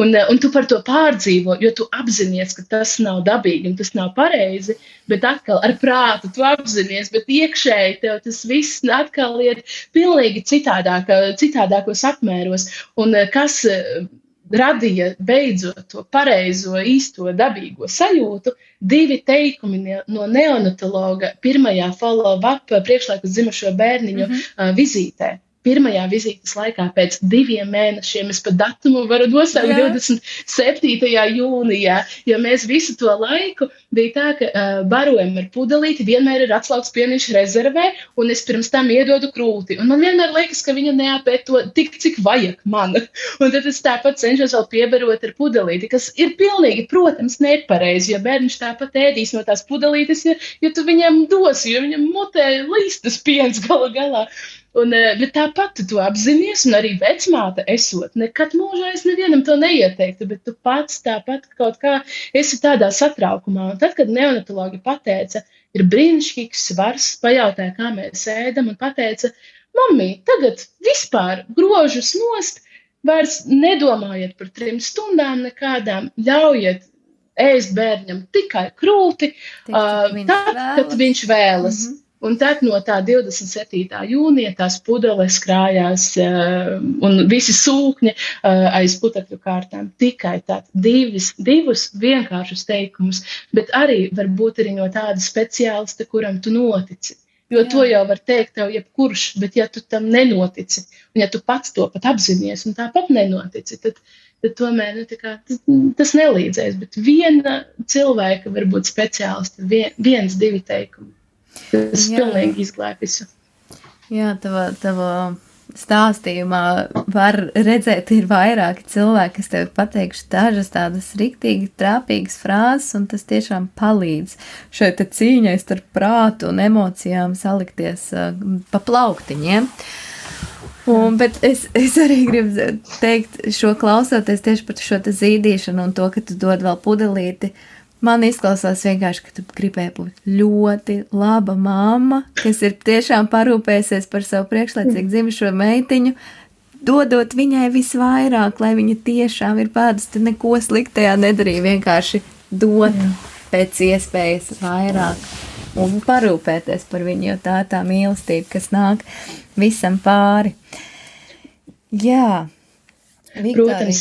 Un tu par to pārdzīvo, jo tu apzinies, ka tas nav dabīgi un tas nav pareizi, bet atkal ar prātu tu apzinies, bet iekšēji tev tas viss atkal iet pilnīgi citādākos apmēros. Un kas radīja beidzot to pareizo, īsto, dabīgo sajūtu, 2 teikumi no neonatologa pirmajā follow-up priekšlaikus dzimušo bērniņu vizītē. Pirmajā vizītes laikā pēc 2 mēnešiem, es pat datumu varu nosaukt 27. jūnijā, jo mēs visu to laiku bija tā, ka barojam ar pudelīti, vienmēr ir atslaukts pieniņš rezervē, un es pirms tam iedodu krūti. Un man vienmēr liekas, ka viņa neapēd to tik, cik vajag man. Un tad es tāpat cenšos vēl piebarot ar pudelīti, kas ir pilnīgi, protams, nepareizi, jo bērniņš tāpat ēdīs no tās pudelītes, ja tu viņam dosi, jo viņam mutē līstas piens galā. Bet tāpat tu to apzinies, un arī vecmāte esot. Nekad mūžā es nevienam to neieteiktu, bet tu pats tāpat kaut kā esi tādā satraukumā. Un tad, kad neonatologi pateica, ir brīnišķīgs svars, pajautāja, kā mēs ēdam, un pateica, mamī, tagad vispār grožus nost, vairs nedomājiet par 3 stundām nekādām, ļaujiet ēst bērņam tikai krūti, tad, kad viņš vēlas. Un tad no tā 27. jūnija tās pudeles krājās un visi sūkņi aiz putekļu kārtām. Tikai tad 2 vienkāršus teikumus, bet arī varbūt arī no tāda speciālista, kuram tu notici. Jo to jau var teikt tev jebkurš, bet ja tu tam nenotici, un ja tu pats to pat apzinies un tāpat nenotici, tad tomēr tas nelīdzēs. Bet viena cilvēka varbūt speciālista, 1-2 teikumi. Tas pilnīgi izglāb visu. Jā, tava stāstījumā var redzēt, ir vairāki cilvēki, kas tev pateikšu dažas tādas riktīgi trāpīgas frāzes, un tas tiešām palīdz šai te cīņai starp prātu un emocijām salikties pa plauktiņiem. Bet es arī gribu teikt, šo klausoties tieši par šo te zīdīšanu un to, ka tu dod vēl pudelīti. Man izklausās vienkārši, ka tu gribēji būt ļoti laba mamma, kas ir tiešām parūpējusies par savu priekšlaicīgi dzimušo meitiņu, dodot viņai visvairāk, lai viņa tiešām ir pēdus, tu neko sliktajā nedarīja, vienkārši dot pēc iespējas vairāk un parūpēties par viņu, jo tā mīlestība, kas nāk visam pāri. Jā. Protams,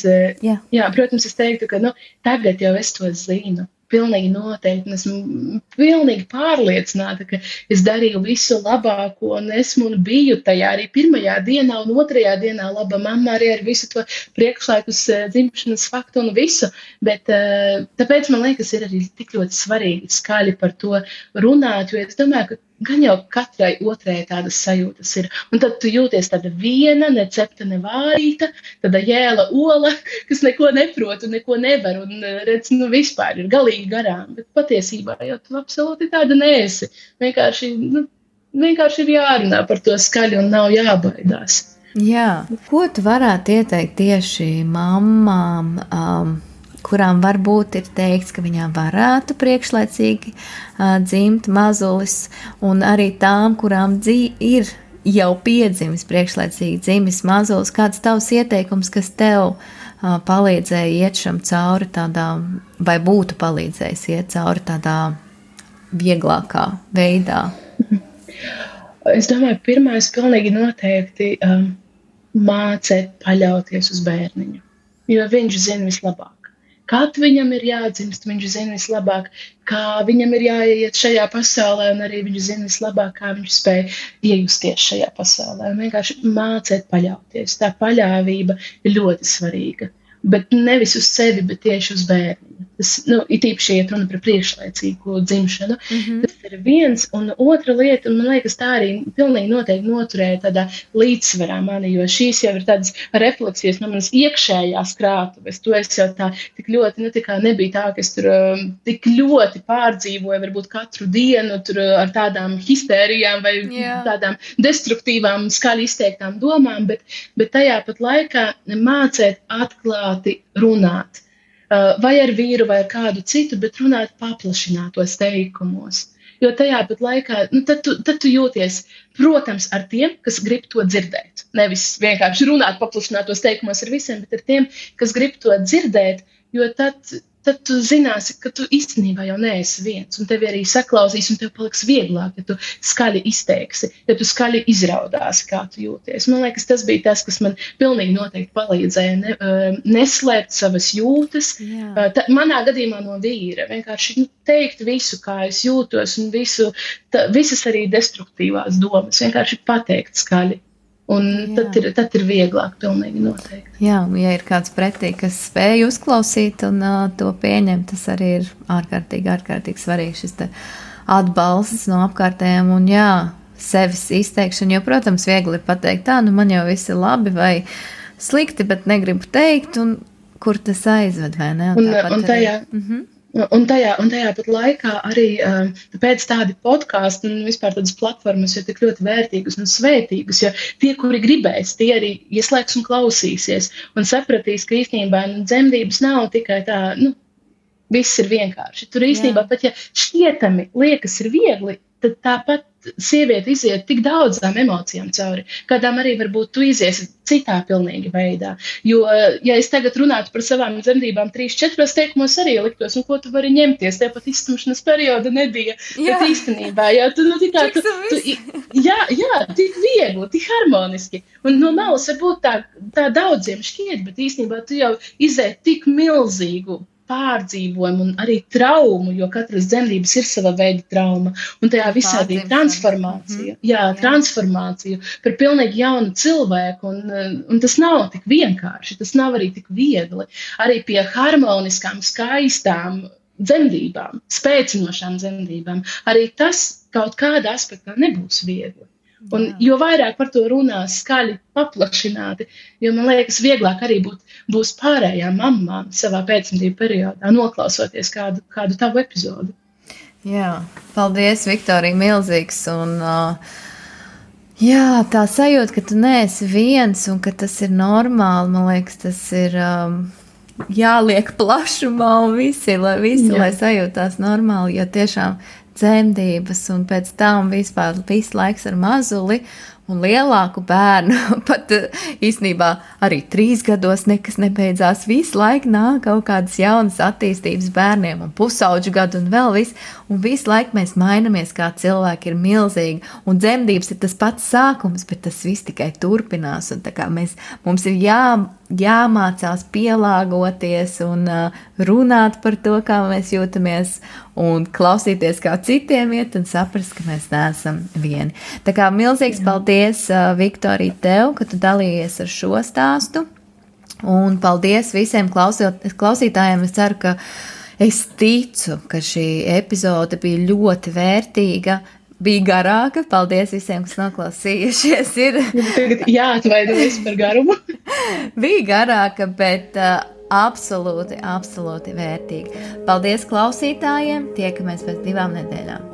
es teiktu, ka tagad jau es to zinu. Pilnīgi noteikti, un esmu pilnīgi pārliecināta, ka es darīju visu labāko, un biju tajā arī pirmajā dienā un 2. dienā laba mamma arī ar visu to priekšlaikus dzimšanas faktu un visu, bet tāpēc man liekas, ir arī tik ļoti svarīgi skaļi par to runāt, jo es domāju, ka gan jau katrai otrai tādas sajūtas ir. Un tad tu jūties tāda viena, necepta, nevārīta, tāda jēla ola, kas neko neprot un neko nevar, un redz, vispār ir galīgi garām. Bet patiesībā jau tu absolūti tāda neesi. Vienkārši ir jārunā par to skaļi un nav jābaidās. Jā. Ko tu varētu ieteikt tieši mammām, kurām varbūt ir teikts, ka viņām varētu priekšlaicīgi dzimt mazulis, un arī tām, kurām ir jau piedzimis priekšlaicīgi dzimis mazulis, kāds tavs ieteikums, kas tev palīdzēja iet šam cauri tādā, vai būtu palīdzējis iet cauri tādā vieglākā veidā? Es domāju, pirmais pilnīgi noteikti mācēt paļauties uz bērniņu, jo viņš zina vislabāk. kad viņam ir jādzimst, viņš zina vislabāk, kā viņam ir jāiet šajā pasaulē, un arī viņš zina vislabāk, kā viņš spēj iejusties šajā pasaulē. Un vienkārši mācēt paļauties. Tā paļāvība ir ļoti svarīga. Bet nevis uz sevi, bet tieši uz bērnu. Tas, it īpaši iet runa par priekšlaicīgu dzimšanu. Tas ir viens, un otra lieta, un man liekas, tā arī pilnīgi noteikti noturēja tādā līdzsvarā mani, jo šīs jau ir tādas refleksijas no manas iekšējās krātuves. To es jau tā tik ļoti, tā kā nebija tā, ka es tur tik ļoti pārdzīvoju, varbūt katru dienu tur ar tādām histērijām vai tādām destruktīvām, skaļi izteiktām domām, bet tajā pat laikā mācēt atklāti runāt. Vai ar vīru, vai ar kādu citu, bet runāt paplašinātos teikumos. Jo tajā pat laikā, tad tu jūties, protams, ar tiem, kas grib to dzirdēt. Nevis vienkārši runāt paplašinātos teikumos ar visiem, bet ar tiem, kas grib to dzirdēt, jo tad tu zināsi, ka tu īstenībā jau neesi viens, un tevi arī saklausīs, un tev paliks vieglāk, ja tu skaļi izteiksi, ja tu skaļi izraudāsi, kā tu jūties. Man liekas, tas bija tas, kas man pilnīgi noteikti palīdzēja neslēpt savas jūtas. Manā gadījumā no vīra vienkārši teikt visu, kā es jūtos, un visas arī destruktīvās domas, vienkārši pateikt skaļi. Un tad ir vieglāk, pilnīgi noteikti. Jā, ja ir kāds pretī, kas spēj uzklausīt un to pieņemt, tas arī ir ārkārtīgi svarīgi šis te atbalsts no apkārtējiem un sevis izteikšana, jo, protams, viegli ir pateikt, man jau viss ir labi vai slikti, bet negribu teikt, un kur tas aizved, vai ne? Un tajā pat laikā arī pēc tādi podkāsti un vispār tādas platformas ir tik ļoti vērtīgas un svētīgas, jo tie, kuri gribēs, tie arī ieslēgs un klausīsies un sapratīs, ka īstenībā dzemdības nav tikai tā, viss ir vienkārši. Tur īstenībā pat, ja šķietami liekas ir viegli, tad tāpat sieviete iziet tik daudzām emocijām cauri, kādām arī varbūt tu iziesi citā pilnīgi veidā. Jo, ja es tagad runātu par savām dzemdībām 3-4 teikumos arī liktos, ko tu vari ņemties, tev pat izstumšanas perioda nebija. Bet īstenībā, tik viegli, tik harmoniski. Un no malas varbūt tā daudziem šķiet, bet īstenībā tu jau izēji tik milzīgu pārdzīvojumu un arī traumu, jo katras dzemdības ir sava veida trauma. Un tajā visā bija transformācija. Transformācija par pilnīgi jaunu cilvēku. Un tas nav tik vienkārši, tas nav arī tik viegli. Arī pie harmoniskām, skaistām dzemdībām, spēcinošām dzemdībām, arī tas kaut kādā aspektā nebūs viegli. Un jo vairāk par to runās skaļi paplašināti, jo man liekas vieglāk arī būs pārējām mamām savā pēcdzemdību periodā, noklausoties kādu tavu epizodu. Jā, paldies, Viktorija, milzīgs. Un, tā sajūta, ka tu neesi viens un ka tas ir normāli, man liekas, tas ir jāliek plašumā un lai sajūtās normāli, jo tiešām dzemdības un pēc tam vispār viss laiks ar mazuli un lielāku bērnu, pat īstenībā arī 3 gados nekas nebeidzās, visu laiku nāk kaut kādas jaunas attīstības bērniem un pusauģu gadu un vēl viss, un visu laiku mēs mainamies kā cilvēki ir milzīgi, un dzemdības ir tas pats sākums, bet tas viss tikai turpinās, un tā kā mums ir jāmācās pielāgoties un runāt par to, kā mēs jūtamies, un klausīties, kā citiem iet, un saprast, ka mēs neesam vieni. Tā kā milzīgs paldies, Viktorija, tev, ka tu dalījies ar šo stāstu, un paldies visiem klausītājiem. Es ceru, ka es ticu, ka šī epizode bija ļoti vērtīga, bija garāka. Paldies visiem, kas noklausījušies. Tagad jāatvainojas par garumu. Bija garāka, bet absolūti vērtīga. Paldies klausītājiem, tiekamies pēc 2 nedēļām.